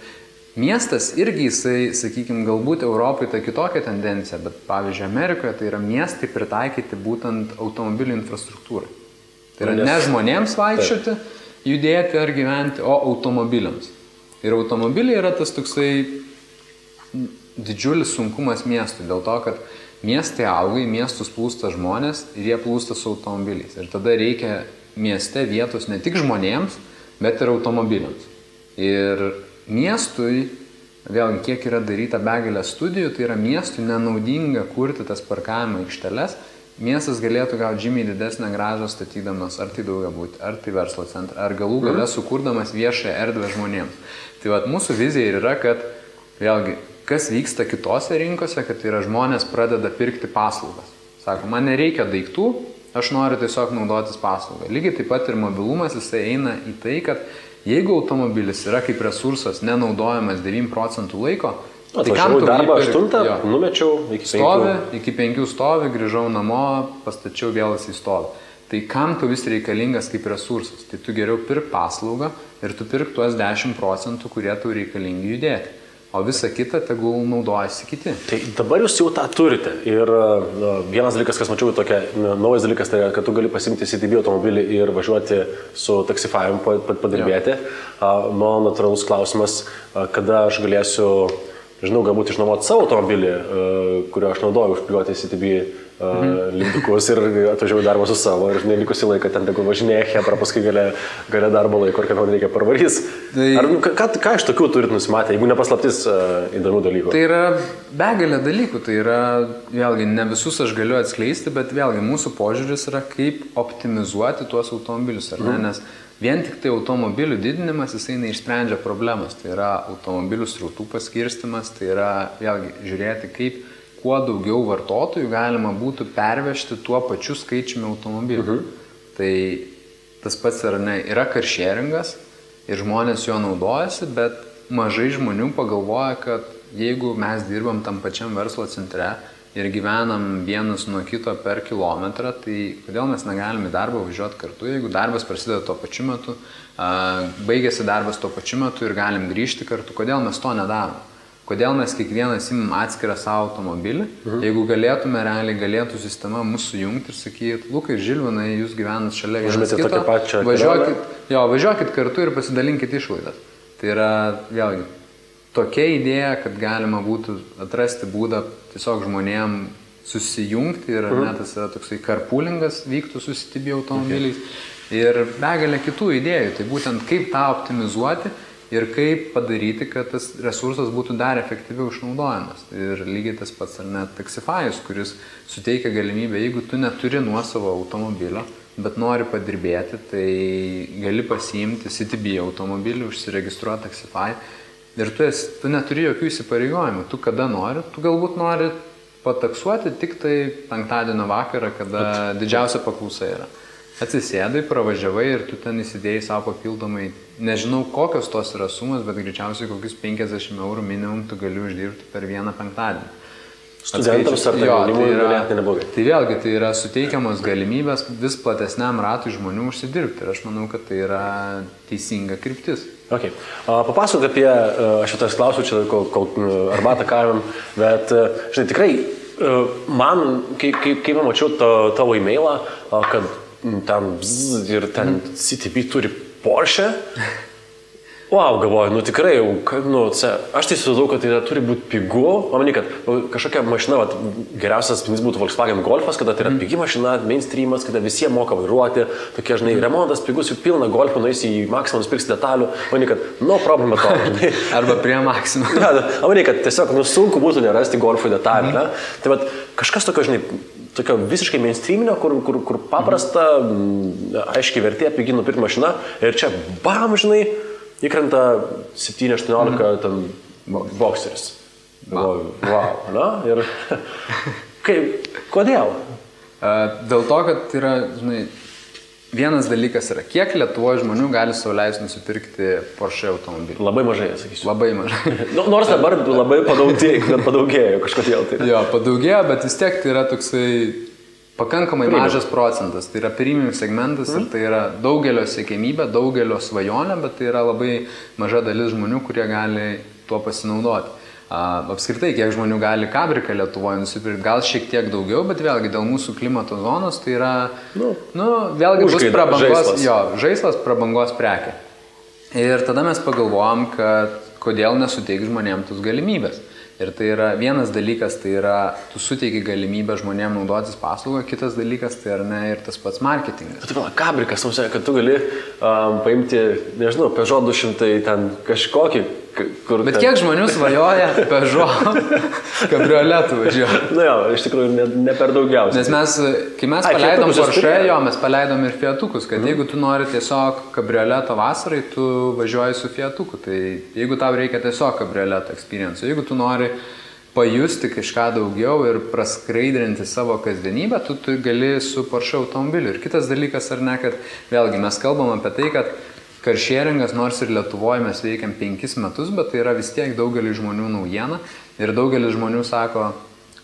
miestas irgi jisai, sakykime, galbūt Europai tai kitokia tendencija, bet pavyzdžiui Amerikoje tai yra miestai pritaikyti būtent automobilių infrastruktūrai. Tai yra ne žmonėms vaikščioti, judėti ar gyventi, o automobiliams. Ir automobiliai yra tas toksai didžiulis sunkumas miestui, dėl to, kad miestai auga, į miestus plūsta žmonės ir jie plūsta su automobiliais. Ir tada reikia mieste vietos ne tik žmonėms, bet ir automobiliams. Ir miestui, vėlgi, kiek yra daryta begalė studijų, tai yra miestui nenaudinga kurti tas parkavimo aikšteles. Miestas galėtų gauti žymiai didesnę grąžą statydamas ar tai daugiabutį, ar tai verslo centrą, ar galų gale sukurdamas viešąją erdvę žmonėms. Tai vat mūsų vizija yra, kad vėlgi, kas vyksta kitose rinkose, kad tai yra žmonės pradeda pirkti paslaugas. Sako, man nereikia daiktų, aš noriu tiesiog naudotis paslaugą. Lygiai taip pat ir mobilumas, jisai eina į tai, kad jeigu automobilis yra kaip resursas nenaudojamas 9% laiko, tai kam tu darbą 8, numečiau iki 5. Stovi, iki 5 stovi, grįžau namo, pastačiau vėl į stovi. Tai kam tu vis reikalingas kaip resursas? Tai tu geriau pirk paslaugą ir tu pirk tuos 10%, kurie tu reikalingi judėti. O visa kita tegul naudojasi kiti. Tai dabar jūs jau tą turite. Ir vienas dalykas, kas mačiau tokia, naujas dalykas, tai kad tu gali pasimti CTB automobilį ir važiuoti su taksifavimu padirbėti. Mano natūralus klausimas, kada aš galėsiu, žinau, galbūt išnuomoti savo automobilį, kurio aš naudoju užkliuoti CTB lindukus ir atvažiavau darbą su savo ir likusi laiką ten tegul važinėja Hebra, paskui gale darbo laiko ir kad man reikia parvarys. Ką iš tokių turit nusimatę, jeigu nepaslaptis įdomių dalykų? Tai yra begalė dalykų, tai yra, vėlgi, ne visus aš galiu atskleisti, bet vėlgi mūsų požiūris yra, kaip optimizuoti tuos automobilius, ar ne, nes vien tik tai automobilių didinimas, jisai neišsprendžia problemas, tai yra automobilių srautų paskirstimas, tai yra, vėlgi, žiūrėti, kaip kuo daugiau vartotojų galima būtų pervežti tuo pačiu skaičiumi automobilių. Tai tas pats yra carsharingas ir žmonės jo naudojasi, bet mažai žmonių pagalvoja, kad jeigu mes dirbam tam pačiam verslo centre ir gyvenam vienas nuo kito per kilometrą, tai kodėl mes negalime į darbą važiuoti kartu, jeigu darbas prasideda tuo pačiu metu, baigėsi darbas tuo pačiu metu ir galim grįžti kartu, kodėl mes to nedarom? Kodėl mes kiekvienas imam atskirą savo automobilį, jeigu galėtume, realiai galėtų sistema mūsų sujungti ir sakyti, Lukai ir Žilvinai, jūs gyvenat šalia vienas kito, važiuokit kartu ir pasidalinkit išlaidas. Tai yra, vėlgi, tokia idėja, kad galima būtų atrasti būdą tiesiog žmonėm susijungti ir tas yra toksai carpoolingas vyktų su CTB automobiliais ir begalė kitų idėjų. Tai būtent kaip tą optimizuoti ir kaip padaryti, kad tas resursas būtų dar efektyviau išnaudojamas. Ir lygiai tas pats ar net Taxify'us, kuris suteikia galimybę, jeigu tu neturi nuosavo automobilio, bet nori padirbėti, tai gali pasiimti CTB automobilį, užsiregistruoti Taxify ir tu neturi jokių įsipareigojimų. Tu kada nori, tu galbūt nori pataksuoti tik tai penktadienio vakarą, kada didžiausia paklausa yra. Atsisėdai, pravažiavai ir tu ten įsidėjai savo papildomai, nežinau kokios tos yra sumas, bet greičiausiai kokius 50 eurų minimum tu gali uždirbti per vieną penktadienį. Studentams ar tai jaunimui galėtų neblogai. Tai vėlgi, tai yra suteikiamos galimybės vis platesniam ratui žmonių užsidirbti ir aš manau, kad tai yra teisinga kryptis. Okay. Papasakok apie, aš jau tas klausiu čia, kol arbatą kavim, bet, žinai, tikrai, man, kai mačiau tavo e-mailą, kad ten ir ten CTB turi Porsche, Wow, galvoju, nu tikrai, aš tai susidau, kad tai turi būti pigu, o manai, kad kažkokia mašina, geriausias spindys būtų Volkswagen Golfas, kada tai yra pigi mašina, mainstreamas, kada visi moka vairuoti, tokie, žinai, remontas pigus, jau pilna Golfų, nueisi į Maximum, nusipirksi detalių, manai, kad no problem at all, žinai. Arba prie Maximum. Ja, manai, kad tiesiog, sunku būtų nerasti Golfų detalių, ne? Tai vat, kažkas tokio, žinai, tokio visiškai mainstreaminio, kur paprasta, aiškiai vertė, pigi nupirkti mašiną ir čia, bam, žinai, įkrenta 7-18 ten bokseris. Wow, na? Ir kodėl? Dėl to, kad yra, žinai, vienas dalykas yra, kiek Lietuvoje žmonių gali sau leisti nusipirkti Porsche automobilį? Labai mažai, sakysiu. Labai mažai. Nors dabar labai padaugėjo kažkodėl. Tai. Jo, padaugėjo, bet vis tiek tai yra toksai pakankamai mažas procentas. Tai yra premium segmentas ir tai yra daugelio siekiamybė, daugelio svajonė, bet tai yra labai maža dalis žmonių, kurie gali tuo pasinaudoti. Apskritai, kiek žmonių gali kabriką Lietuvoje nusipirkti, gal šiek tiek daugiau, bet vėlgi dėl mūsų klimato zonos tai yra, vėlgi bus prabangos, žaislas prabangos prekė. Ir tada mes pagalvojom, kad kodėl nesuteik žmonėms tos galimybės. Ir tai yra vienas dalykas, tai yra, tu suteiki galimybę žmonėms naudotis paslaugą, kitas dalykas, tai yra ne ir tas pats marketingas. Bet kabrikas, kad tu gali paimti, nežinau, Peugeot 200 ten kažkokį, kur... Bet kiek žmonių svajoja Peugeot kabrioletų važiuoja? Na jo, iš tikrųjų ne per daugiausiai. Nes kai mes paleidom Porsche, mes paleidom ir Fiatukus, kad jeigu tu nori tiesiog kabrioleto vasarai, tu važiuoji su Fiatuku. Tai jeigu tau reikia tiesiog kabrioleto experience, jeigu tu nori pajusti kažką daugiau ir praskraidrinti savo kasdienybę, tu gali su Porsche automobiliu. Ir kitas dalykas ar ne, kad vėlgi mes kalbam apie tai, kad carsharingas, nors ir Lietuvoje mes veikiam 5 metus, bet tai yra vis tiek daugelis žmonių naujiena ir daugelis žmonių sako,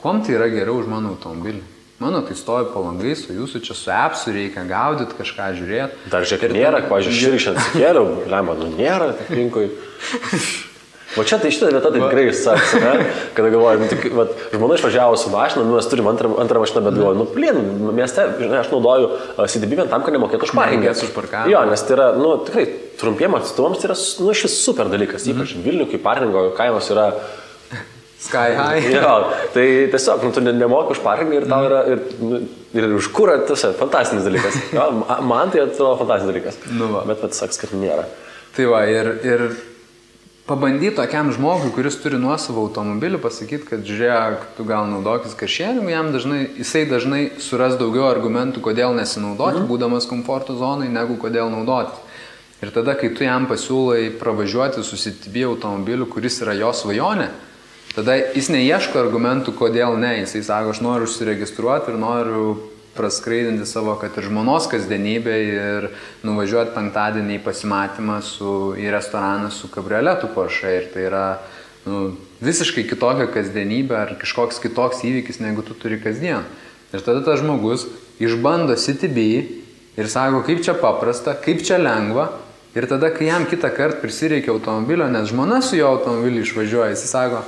kuom tai yra geriau už mano automobilį. Mano tai stovi po langais, o jūsų čia su appsu reikia gaudyti, kažką žiūrėti. Dar žiūrėk, nėra, pažiūrėjau, šiandien sikėliau, lemą, nėra aplinkui. O čia tai šitą vietą tai tikrai išsaks, ne? Kada galvoju, žmona išvažiavo su mašina, mes turim antrą mašiną, bet galvoju, mieste, žinai, aš naudoju CDB vien tam, kad nemokėtų už parkingą. Jo, nes tai yra, tikrai trumpiem atstumams tai yra, iš vis super dalykas, ypač Vilnių, kai parkingo kainos yra sky high. Jo, tai tiesiog, tu nemoki už parkingą ir tau yra, ir už kurą, tiesiog, fantastinis dalykas. Jo, man tai atrodo fantastinis dalykas. Bet saks, kad nėra. Tai va, ir pabandyti tokiam žmogui, kuris turi nuosavą automobilį, pasakyti, kad žiūrėk, tu gal naudokis carsharingu, jisai dažnai suras daugiau argumentų, kodėl nesinaudoti, būdamas komforto zonai, negu kodėl naudotis. Ir tada, kai tu jam pasiūlai pravažiuoti su CTB automobiliu, kuris yra jo svajonė, tada jis neieško argumentų, kodėl ne. Jisai sako, aš noriu užsiregistruoti ir noriu praskraidinti savo, kad ir žmonos kasdienybę ir nuvažiuoti penktadienį į pasimatymą į restoraną su kabrioletu Porsche. Ir tai yra visiškai kitokia kasdienybė ar kažkoks kitoks įvykis, negu tu turi kasdien. Ir tada tas žmogus išbando CTB ir sako, kaip čia paprasta, kaip čia lengva. Ir tada, kai jam kitą kartą prisireikia automobilio, nes žmona su jo automobiliu išvažiuoja, jis sako,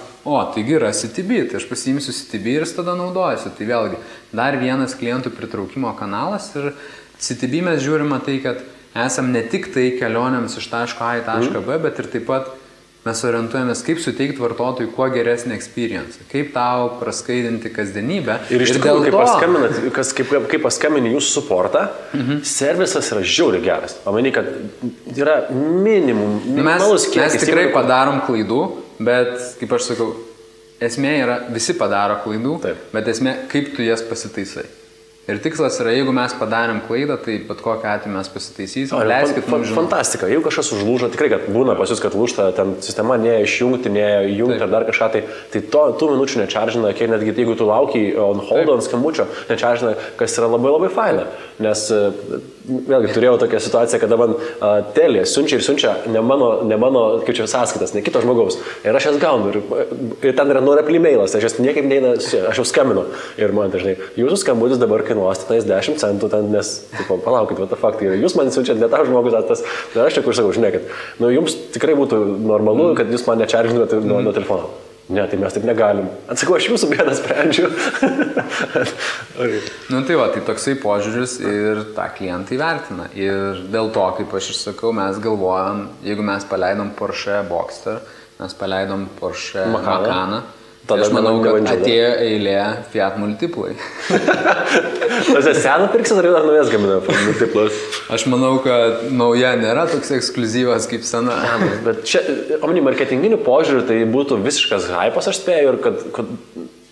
taigi yra CTB, tai aš pasiimsiu CTB ir tada naudojasi. Tai vėlgi, dar vienas klientų pritraukimo kanalas ir CTB mes žiūrime tai, kad esam ne tik tai kelionėms iš taško A į tašką B, bet ir taip pat mes orientuojamės, kaip suteikti vartotojui kuo geresnį experience, kaip tau praskaidinti kasdienybę. Ir iš tikrųjų, kai paskambini jūsų suportą, servisas yra žiauriai geras. Pamany, kad yra minimum, minimalus kiekis. Mes tikrai padarom klaidų, bet, kaip aš sakau, esmė yra, visi padaro klaidų, bet esmė, kaip tu jas pasitaisai. Ir tikslas yra, jeigu mes padarėm klaidą, tai bet kokią atveju mes pasitaisysim. Leiskit mums žinoti. Fantastika. Jeigu kažkas užlūžo, tikrai, kad būna pas jūs, kad lūžta, ten sistema neišjungti, neįjungti ar dar kažką, tai tų minučių nečaržina, kiek netgi jeigu tu laukiai on hold ant skambučio, nečaržina, kas yra labai labai faina. Nes vėlgi turėjau tokią situaciją, kada man telė siunčia ne mano kaip čia sąskaitas, ne kito žmogaus. Ir aš jas gaunu. Ir ten yra nuoreply mailas, aš jas niekaip neina, aš jau skambinu. Ir man dažnai, jūsų skambutis dabar kainuos 10 centų, ten, nes, palaukit, what the fuck, tai jūs man siunčiat, ne tau žmogus, tai aš čia kur sakau, žinai, kad jums tikrai būtų normalu, kad jūs man nečaržinate nuo telefono. Ne, tai mes taip negalim. Atsakau, aš jūsų bėdą sprendžiu. Nu tai va, tai toksai požiūris ir tą klientai vertina. Ir dėl to, kaip aš ir sakau, mes galvojam, jeigu mes paleidom Porsche Boxster, mes paleidom Porsche Macaną, tai aš manau, kad atėjo eilė Fiat Multiplai. Tas seną pirksit ar naujas gamina Multiplas? Aš manau, kad nauja nėra toks ekskliuzyvas kaip sena. Bet čia, omeny, marketinginių požiūrių tai būtų visiškas hypas, aš spėju, ir kad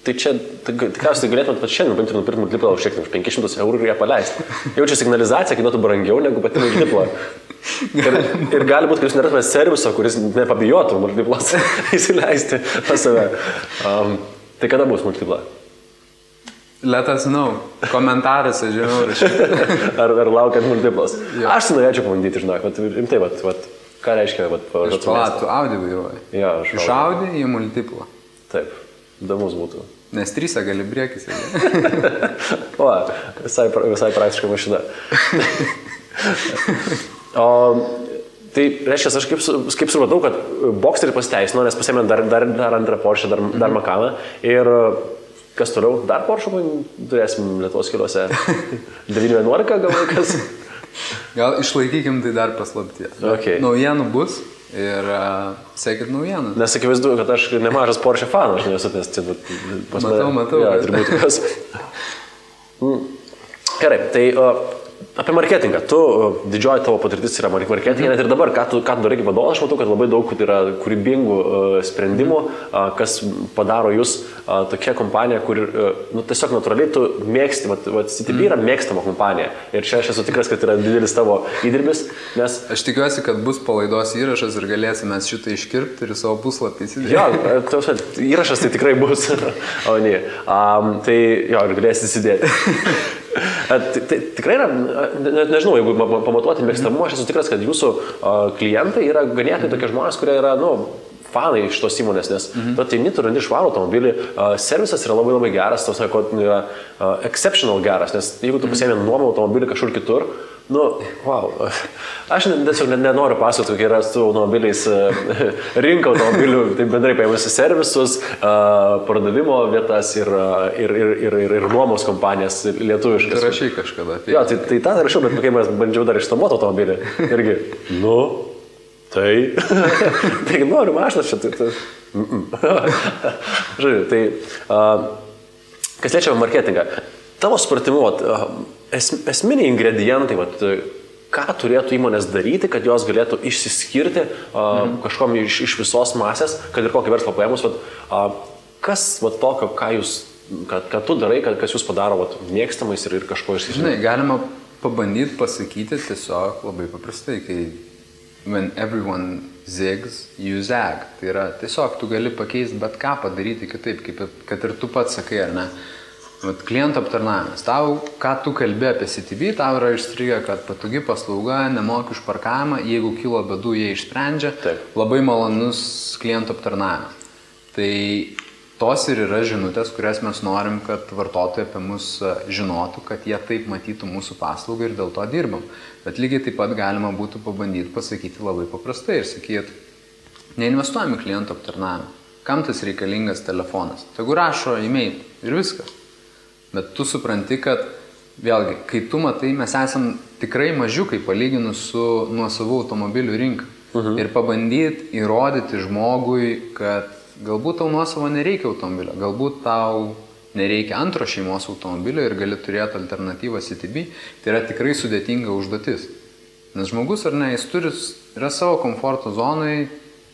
tai čia, tikriausiai galėtumėt pat šiandien paimti ir nupirkti Multiplą už 500 eurų ir ją paleisti. Jau čia signalizacija kainuotų brangiau negu pati Multipla. Ir gali būti, kad jūs nerastumėte serviso, kuris nepabijotų Multiplas įsileisti pas save. Tai kada bus Multipla? Let us know. Komentaruose, žinau, rašyti. Ar laukiant Multiplas? Aš norėčiau pabandyti, žinok, rimtai, ką reiškia, Iš palatų Audi vairuoji. Ja, iš Audi į Multiplą. Taip, įdomus būtų. Nes 3 gali briekis. O, visai praktiška mašina. Tai reiškia, aš kaip supratau, kad Boxsterį pasiteisino, nes pasėmė dar antrą Porsche, dar Macaną. Ir kas toliau? Dar Porsche turėsim Lietuvos keliuose 911 gal laikas? Gal išlaikykim tai dar paslaptie. Okay. Naujienų bus ir sekit naujieną. Nes akivaizdu, kad aš nemažas Porsche fanas, aš nesu nes matau. Ja, turbūt kas. Gerai, tai apie marketingą. Didžioji tavo patirtis yra marketingė, net ir dabar, ką tu darai kaip vadovas, aš matau, kad labai daug yra kūrybingų sprendimų, kas padaro jūs tokia kompanija, kur tiesiog natūraliai tu mėgsti, CTB yra mėgstama kompanija. Ir čia aš esu tikras, kad yra didelis tavo įdirbis, nes... Aš tikiuosi, kad bus palaidos įrašas ir galėsime šitą iškirpti ir savo puslapį įsidėti. Jo, įrašas tai tikrai bus. O ne. Tai jo, ir galėsi įsidėti. Tai tikrai yra, nežinau, jeigu pamatuoti mėgstamumą, aš esu tikras, kad jūsų klientai yra ganėtinai tokie žmonės, kurie yra, fanai iš tos įmonės, nes tu ateini, tu randi švarų automobilį, servisas yra labai labai geras, tos yra exceptional geras, nes jeigu tu pasiėmė nuomą automobilį kažkur kitur, wow, aš tiesiog nenoriu pasakoti, kokie yra su automobiliais rinka automobilių, tai bendrai paėmusi servisus, pardavimo vietas ir nuomos kompanijas lietuviškas. Tai rašai kažkada. Jo, tai tą rašiau, bet kai mes bandžiau dar išnuomoti automobilį, irgi, tai noriu mašiną čia. Žodžiu, tai kas liečia marketingą, tavo supratimu, esminiai ingredientai, ką turėtų įmonės daryti, kad jos galėtų išsiskirti kažkom iš visos masės, kad ir kokį verslą paėmus, kas tokio, ką tu darai, kas jūs padaro mėgstamais ir kažko išsiskirti? Žinai, galima pabandyti pasakyti tiesiog labai paprastai, kai when everyone zigs, you zag. Tai yra tiesiog tu gali pakeisti bet ką padaryti kitaip, kad ir tu pats sakai, ar ne? Klientų aptarnavimas. Tau, ką tu kalbė apie CTB, tau yra išstrigę, kad patogi paslauga, nemoki už parkavimą, jeigu kilo bėdų, jie išsprendžia. Taip. Labai malonus klientų aptarnavimas. Tai tos ir yra žinutės, kurias mes norim, kad vartotojai apie mus žinotų, kad jie taip matytų mūsų paslaugą ir dėl to dirbam. Bet lygiai taip pat galima būtų pabandyti pasakyti labai paprastai ir sakyti, neinvestuojame klientų aptarnavimą. Kam tas reikalingas telefonas? Tegu rašo e-mail ir viskas. Bet tu supranti, kad vėlgi, kai tu matai, mes esam tikrai mažiukai palyginus su nuosavų automobilių rinka. Ir pabandyti įrodyti žmogui, kad galbūt tau nuosavo nereikia automobilio, galbūt tau nereikia antro šeimos automobilio ir gali turėti alternatyvą CTB, tai yra tikrai sudėtinga užduotis. Nes žmogus, ar ne, jis yra savo komforto zonai,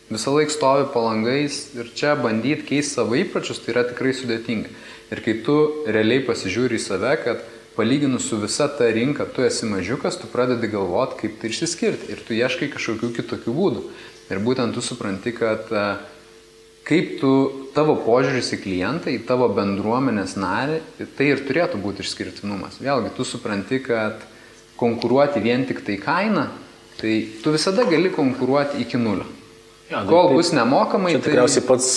visą laiką stovi po langais ir čia bandyti keisti savo įpročius, tai yra tikrai sudėtinga. Ir kai tu realiai pasižiūri į save, kad palyginus su visa ta rinka, tu esi mažiukas, tu pradedi galvoti, kaip tai išsiskirti ir tu ieškai kažkokių kitokių būdų. Ir būtent tu supranti, kad kaip tavo požiūris į klientą, į tavo bendruomenės narį, tai ir turėtų būti išskirtinumas. Vėlgi, tu supranti, kad konkuruoti vien tik tai kainą, tai tu visada gali konkuruoti iki nulio. Ja, kol bus nemokamai, tai tikriausiai pats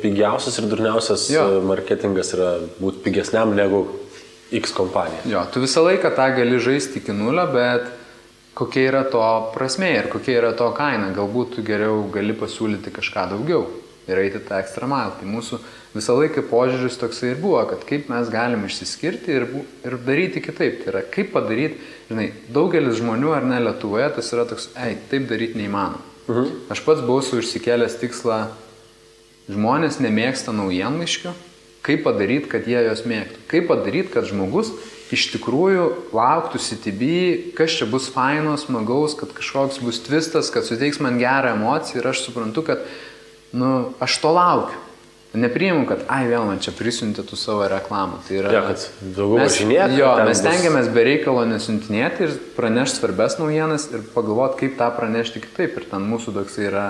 pigiausias ir durniausias marketingas yra būti pigesniam negu X kompanija. Jo, tu visą laiką tą gali žaisti iki nulio, bet kokia yra to prasmė ir kokia yra to kaina. Galbūt tu geriau gali pasiūlyti kažką daugiau. ir eiti tą extra mile. Tai mūsų visą laiką požiūris toksai ir buvo, kad kaip mes galim išsiskirti ir daryti kitaip. Tai yra, kaip padaryti, žinai, daugelis žmonių ar ne Lietuvoje, tas yra toks, taip daryti neįmanoma. Aš pats buvau užsikėlęs tikslą, žmonės nemėgsta naujienlaiškių, kaip padaryti, kad jie jos mėgtų. Kaip padaryti, kad žmogus iš tikrųjų lauktų CTB, kas čia bus faino, smagaus, kad kažkoks bus twistas, kad suteiks man gerą emociją ir aš suprantu, kad aš to laukiu. Nepriimu, kad vėl man čia prisiuntė tu savo reklamą. Tai yra, kad daugiau važinėti. Mes stengiamės be reikalo nesiuntinėti ir pranešti svarbes naujienas ir pagalvoti, kaip tą pranešti kitaip. Ir ten mūsų toksai yra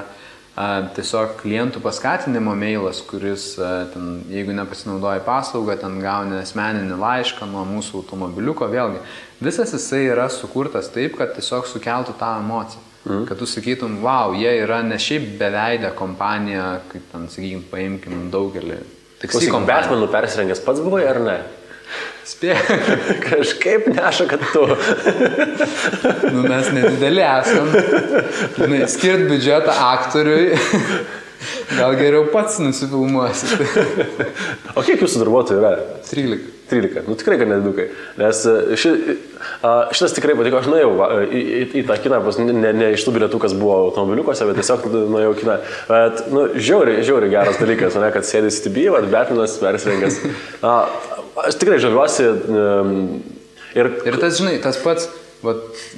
tiesiog klientų paskatinimo mailas, kuris, ten, jeigu nepasinaudoji paslaugą, ten gauni asmeninį laišką nuo mūsų automobiliuko, vėlgi. Visas jisai yra sukurtas taip, kad tiesiog sukeltų tą emociją. Kad tu sakytum, wow, jie yra ne šiaip beveidę kompanija, kaip ten, sakykim, paimkim daugelį. Klausyk, Batmanų persirengęs pats buvai ar ne? Spėjau. Kažkaip neša, kad tu. Mes nedideli esam. Skirt biudžetą aktoriui. Gal geriau pats nusifilmuosi. O kiek jūsų darbuotojų yra? 13. Tikrai, kad nedidukai. Nes šitas tikrai patiko. Aš nuėjau į tą kiną, ne iš tų bilietų, kas buvo automobiliukose, bet tiesiog nuėjau į kiną. Bet, žiauriai geras dalykas, kad sėdė CTB, Batmanas persirengęs. Aš tikrai žaviuosi. Ir tas, žinai, tas pats,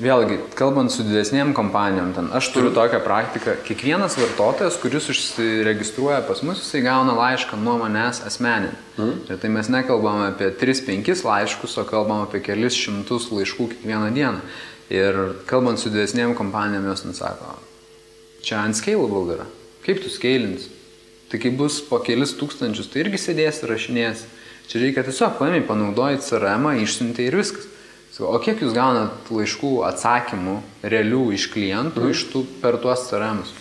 vėlgi, kalbant su didesnėm kompanijom, aš turiu tokią praktiką, kiekvienas vartotojas, kuris užsiregistruoja pas mus, jisai gauna laišką nuo manęs asmeninį. Ir tai mes nekalbame apie 3-5 laiškus, o kalbame apie kelis šimtus laiškų kiekvieną dieną. Ir kalbant su didesnėm kompanijom, jos sako, čia unscalable yra. Kaip tu scalinsi? Tai kai bus po kelis tūkstančius, tai irgi sėdės ir rašinės. Čia reikia tiesiog paėmė, panaudojai CRM, išsiuntė ir viskas. O kiek jūs gaunat laiškų atsakymų realių iš klientų per tuos CRM'us?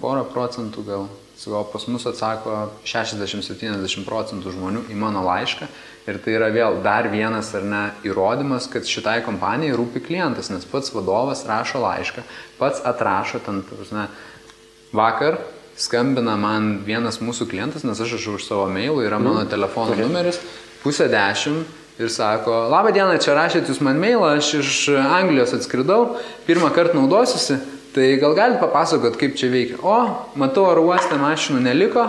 Porą procentų gal. O pas mus atsako 60-70% žmonių į mano laišką. Ir tai yra vėl dar vienas ar ne įrodymas, kad šitai kompanijai rūpi klientas, nes pats vadovas rašo laišką, pats atrašo ten, vakar skambina man vienas mūsų klientas, nes aš už savo mailų, yra mano telefono numeris, 9:30 ir sako, labą dieną, čia rašėt jūs man mailą, aš iš Anglijos atskridau, pirmą kartą naudosiuosi, tai gal galite papasakot, kaip čia veikia. Matau, oro uoste mašinų neliko,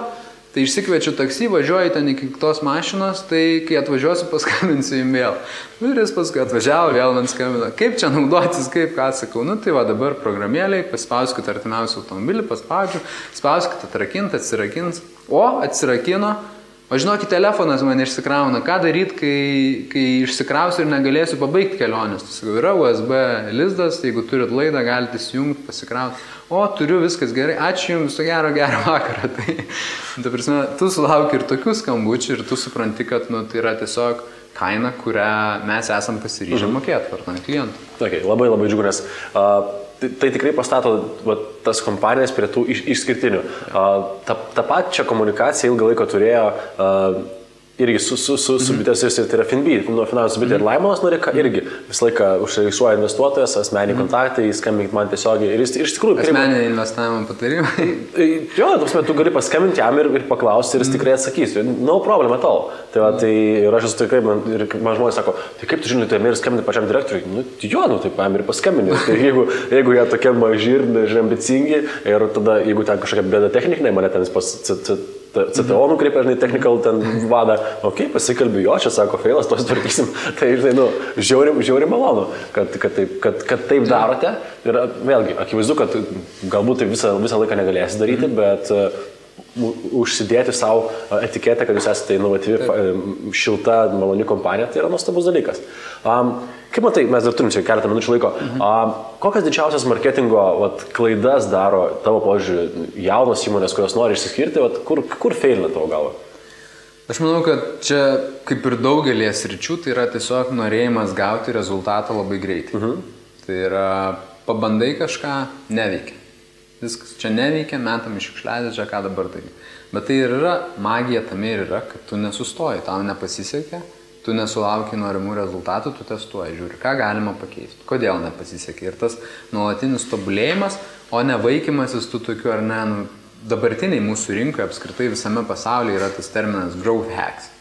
tai išsikviečiu taksi, važiuoju ten iki tos mašinos, tai kai atvažiuosiu, paskambinsiu jums vėl. Ir jis paskui atvažiavo, vėl man skambino, kaip čia naudotis, kaip ką sakau. Tai va dabar programėliai, paspauskite artimiausią automobilį, paspaudžiu, spauskite atrakint, atsirakins. Atsirakino. O žinokit, telefonas man išsikrauna. Ką daryti, kai išsikrausiu ir negalėsiu pabaigti kelionės? Tai yra USB lizdas, jeigu turit laidą, galite įsijungti, pasikrauti. Turiu, viskas gerai, ačiū jums, gerą vakarą. Tai prasme, tu sulauki ir tokių skambučių ir tu supranti, kad tai yra tiesiog kaina, kurią mes esam pasiryžę mokėti vartant klientų. Labai džiugu, nes tai tikrai pastato tas kompanijas prie tų išskirtinių. Ta pačia komunikacija ilgą laiką turėjo irgi su bitės, tai yra Finbi, nuo finansų bitė ir Laimonas Norika, irgi visą laiką užregistruoja investuotojas, asmeniniai kontaktai, skambink man tiesiogiai. Ir iš tikrųjų... Asmeniniai investavimo patarimai. Tu gali paskambinti jam ir paklausti ir jis tikrai atsakys. No problem at all. Tai ir aš esu tikrai, ir man žmonės sako, tai kaip tu žinai, tai ir skambinti pačiam direktoriui? Tai paėmė ir paskambinti. Tai jeigu jie tokie maži ir ambicingi, ir tada, jeigu ten kažkokia bėda technikinė, mane ten pas CTO nukreipia, technikal ten vada, pasikalbė jo, čia sako, feilas, to sutvarkysim. Tai, žiauriai malonu, kad taip darote. Ir vėlgi, akivaizdu, kad galbūt tai visą laiką negalėsi daryti, bet užsidėti savo etiketę, kad jūs esate inovatyvi, šilta, maloni kompanija, tai yra nuostabus dalykas. Kaip matai, mes dar turim čia keletą minučių laiko, kokias didžiausias marketingo klaidas daro tavo požiūrį jaunos įmonės, kurios nori išsiskirti, kur feilina tavo galva? Aš manau, kad čia, kaip ir daugelį sričių, tai yra tiesiog norėjimas gauti rezultatą labai greitai. Tai yra, pabandai kažką, neveikia. Viskas čia neveikia, metam iš šiukšliadės, čia ką dabar daryti. Bet tai ir yra, magija tame ir yra, kad tu nesustoji, tau nepasisekė, tu nesulauki norimų rezultatų, tu testuoji, žiūri, ką galima pakeisti, kodėl nepasisekė. Ir tas nuolatinis tobulėjimas, o ne vaikymasis tu tokiu ar ne, dabartiniai mūsų rinkoje apskritai visame pasaulyje yra tas terminas growth hacks.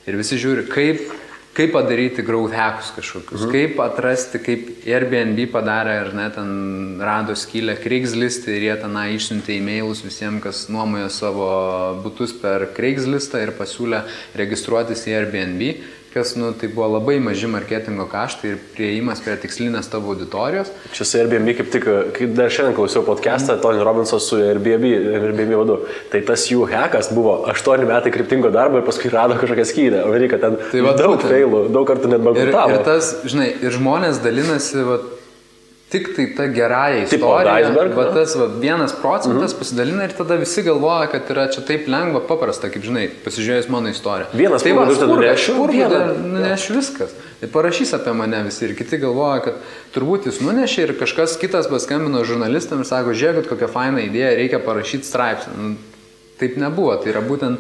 Ir visi žiūri, kaip padaryti growth hackus kažkokius, kaip atrasti, kaip Airbnb padarė ir net ten rado skylę Craigslist'e ir jie tenai išsiuntė e-mailus visiems, kas nuomoja savo butus per Craigslist'ą ir pasiūlė registruotis į Airbnb, kas, tai buvo labai maži marketingo kaštai ir prieimas prie tikslinės tavo auditorijos. Čia su Airbnb kaip tik, kai dar šiandien klausiau podcastą, Tony Robinson su Airbnb vadu, tai tas jų hackas buvo 8 metai kryptingo darbo ir paskui rado kažkokią skylę. O reikia ten daug failų, daug kartų net bankrutavo. Ir tas, žinai, ir žmonės dalinasi, tik tai ta gerąja istorija, bet tas 1% pasidalina ir tada visi galvoja, kad yra čia taip lengva, paprasta, kaip žinai, pasižiūrėjus mano istoriją. Vienas tai nunešiu viskas. Tai parašys apie mane visi ir kiti galvoja, kad turbūt jis nunešė ir kažkas kitas paskambino žurnalistam ir sako, žiūrėkit, kokia faina idėja, reikia parašyti straipsnį. Taip nebuvo, tai yra būtent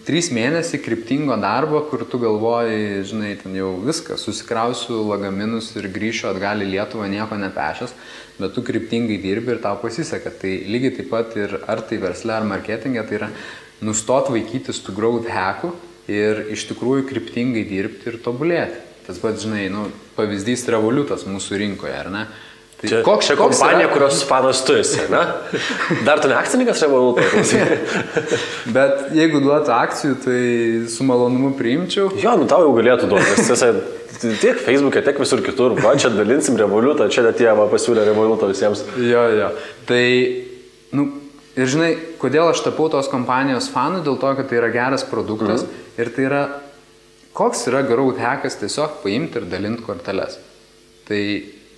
3 mėnesiai kryptingo darbo, kur tu galvoji, žinai, ten jau viskas, susikrausiu lagaminus ir grįšiu atgal į Lietuvą nieko nepešęs, bet tu kryptingai dirbi ir tau pasiseka. Tai lygiai taip pat ir ar tai versle, ar marketinge, tai yra nustot vaikytis tų growth hackų ir iš tikrųjų kryptingai dirbti ir tobulėti. Tas pats, žinai, pavyzdys Revolutas mūsų rinkoje, ar ne? Tai koks kompanija, kurios fanas tu esi, ne? Dar tu ne akcininkas Revoluto? Bet jeigu duotų akcijų, tai su malonumu priimčiau. Jo, tau jau galėtų duoti. Tiek Facebook'e, tiek visur kitur. Va, čia dalinsim Revolutą, čia net jie pasiūlė Revolutą visiems. Jo. Tai, ir žinai, kodėl aš tapau tos kompanijos fanų? Dėl to, kad tai yra geras produktas ir tai yra, koks yra growth hackas tiesiog paimti ir dalinti korteles. Tai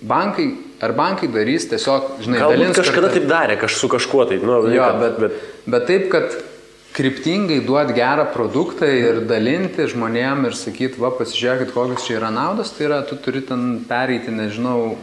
bankai darys tiesiog, žinai, galbūt kažkada taip darė, su kažkuo tai. Bet taip, kad kryptingai duoti gerą produktą ir dalinti žmonėm ir sakyti, pasižiūrėkit, kokios čia yra naudos, tai yra, tu turi ten pereiti, nežinau,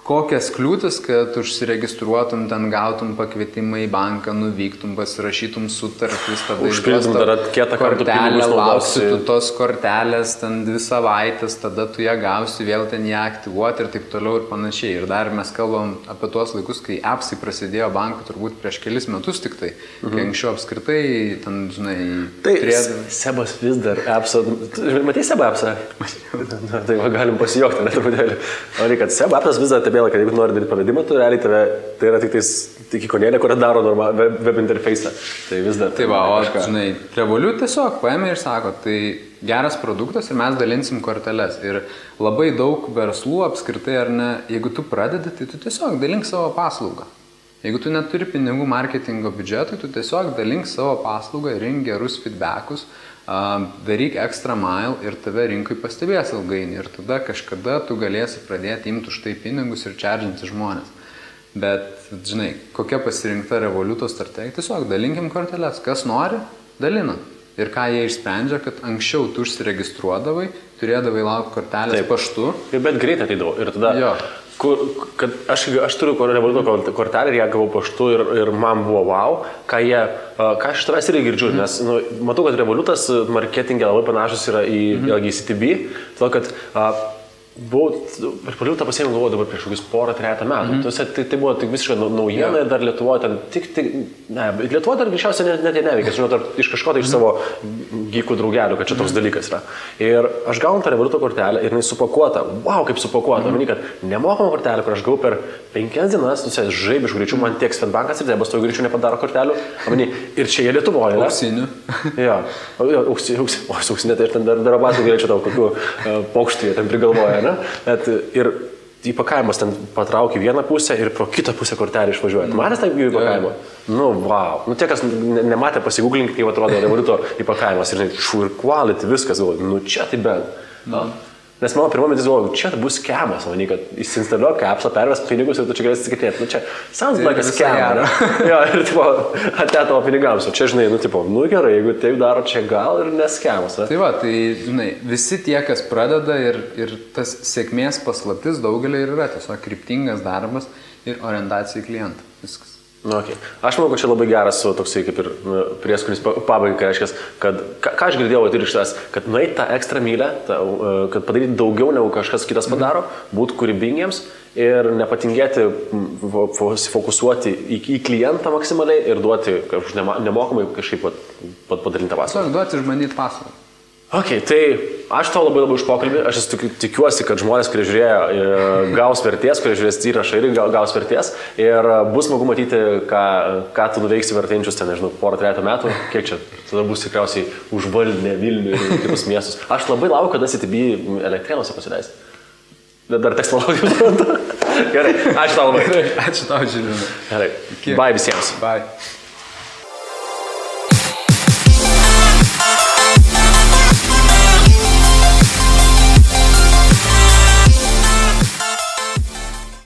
kokias kliūtis, kad užsiregistruotum, ten gautum pakvietimą į banką, nuvyktum, pasirašytum sutartis, tada užpildytum dar kietą kortelę, lauksi tu tos kortelės, ten 2 savaitės, tada tu ją gausi, vėl ten ją aktyvuoti ir taip toliau ir panašiai. Ir dar mes kalbam apie tuos laikus, kai appsai prasidėjo bankų turbūt prieš kelis metus tik tai, kai anksčiau apskritai, ten, žinai, Sebas vis dar appsą, matei Sebą appsą? Tai galim pasijokti, net truputėlį. O reikia, Sebą appsas vis dar kad jeigu nori daryti pavedimą, tu realiai tai yra tik ikonėlė, kurią daro web interface'ą. Tai vis dar. Tai žinai, Revolut tiesiog paėmė ir sako, tai geras produktas ir mes dalinsim korteles. Ir labai daug verslų apskritai, ar ne, jeigu tu pradedi, tai tu tiesiog dalink savo paslaugą. Jeigu tu neturi pinigų marketingo biudžetui, tu tiesiog dalink savo paslaugą, rink gerus feedbackus, daryk extra mile ir tave rinkai pastebės ilgainiui. Ir tada kažkada tu galėsi pradėti imti už tai pinigus ir čardžinti žmonės. Bet, žinai, kokia pasirinkta Revoluto strategija? Tiesiog dalinkim korteles. Kas nori, dalina. Ir ką jie išsprendžia, kad anksčiau tu užsiregistruodavai, turėdavai laukti kortelės paštu. Bet greitai ateidavau. Ir tada... Kad aš turiu Revoluto kortelę ir ją gavau paštu ir man buvo wow, ką aš iš tavęs irgi girdžiu, nes matau, kad Revolutas marketingė labai panašus yra į CTB, todėl kad per Revolutą pasiėmė galvoju dabar prieš kokius 3 metų. Tai buvo tik visiškai naujiena ir dar Lietuvoje ten Lietuvoje dar greičiausiai net neveikia, žinau, iš kažko tai iš savo gykų draugelių, kad čia toks dalykas yra. Ir aš gaunu tą Revoluto kortelę ir jinai supakuota. Wow, kaip supakuota. Manau, kad nemokama kortelė, kur aš gavau per 5 dienas, žaibiškų greičių, man tiek Swedbankas ir Debas to greičių nepadaro kortelių. Ir čia jie Lietuvoje. Auksinių. Jo, auksinė, tai ir ten dar abatų galėčiau tau kokių paukštų jie ten prigalvoja. Bet ir įpakavimas ten patraukia vieną pusę ir pro kitą pusę kortelį išvažiuoja. Matęs taip jų įpakavimą? Wow. Tie, kas nematė, pasigūglinkit, kaip atrodo Revoluto įpakavimas. Ir quality, viskas, galvoju, čia tai bent. Nes mano pirma mintis galvoju, čia bus skemas, manai, kad įsinstaliuok appsą, perves pinigus ir tu čia galėsi atsikėtėti. Čia sounds like a scam. Jo, ir atėjo tavo pinigams. O čia, žinai, gerai, jeigu taip daro, čia gal ir neskemas. Tai tai, žinai, visi tie, kas pradeda ir tas sėkmės paslaptis daugelį ir yra tiesiog kryptingas darbas ir orientacija į klientą. Viskas. Okay. Aš manau, kad čia labai geras toksai kaip ir prieskonis pabaigai, reiškia, kad ką aš girdėjau ir iš tas, kad nueit tą ekstra mylę, kad padaryti daugiau negu kažkas kitas padaro, būti kūrybingiems ir nepatingėti fokusuoti į klientą maksimaliai ir duoti nemokamai kažkaip padarintą paslaugą. Duoti išmanyti paslaugą. Ok, tai aš tau labai už pokalbį, aš tikiuosi, kad žmonės, kurie žiūrėjo, gaus vertės, kurie žiūrės įrašą ir gaus vertės ir bus smagu matyti, ką tu nuveiksi vertėjančius ten, nežinau, porą, 3 metų, kiek čia, tada bus tikriausiai užvaldinę Vilnių ir kitus miestus. Aš labai laukiu, kada CTB Elektrėnuose pasileisti. Dar teks palaukti. Gerai, ačiū tau labai. Ačiū tau, Žilvinai. Gerai, bye visiems. Bye.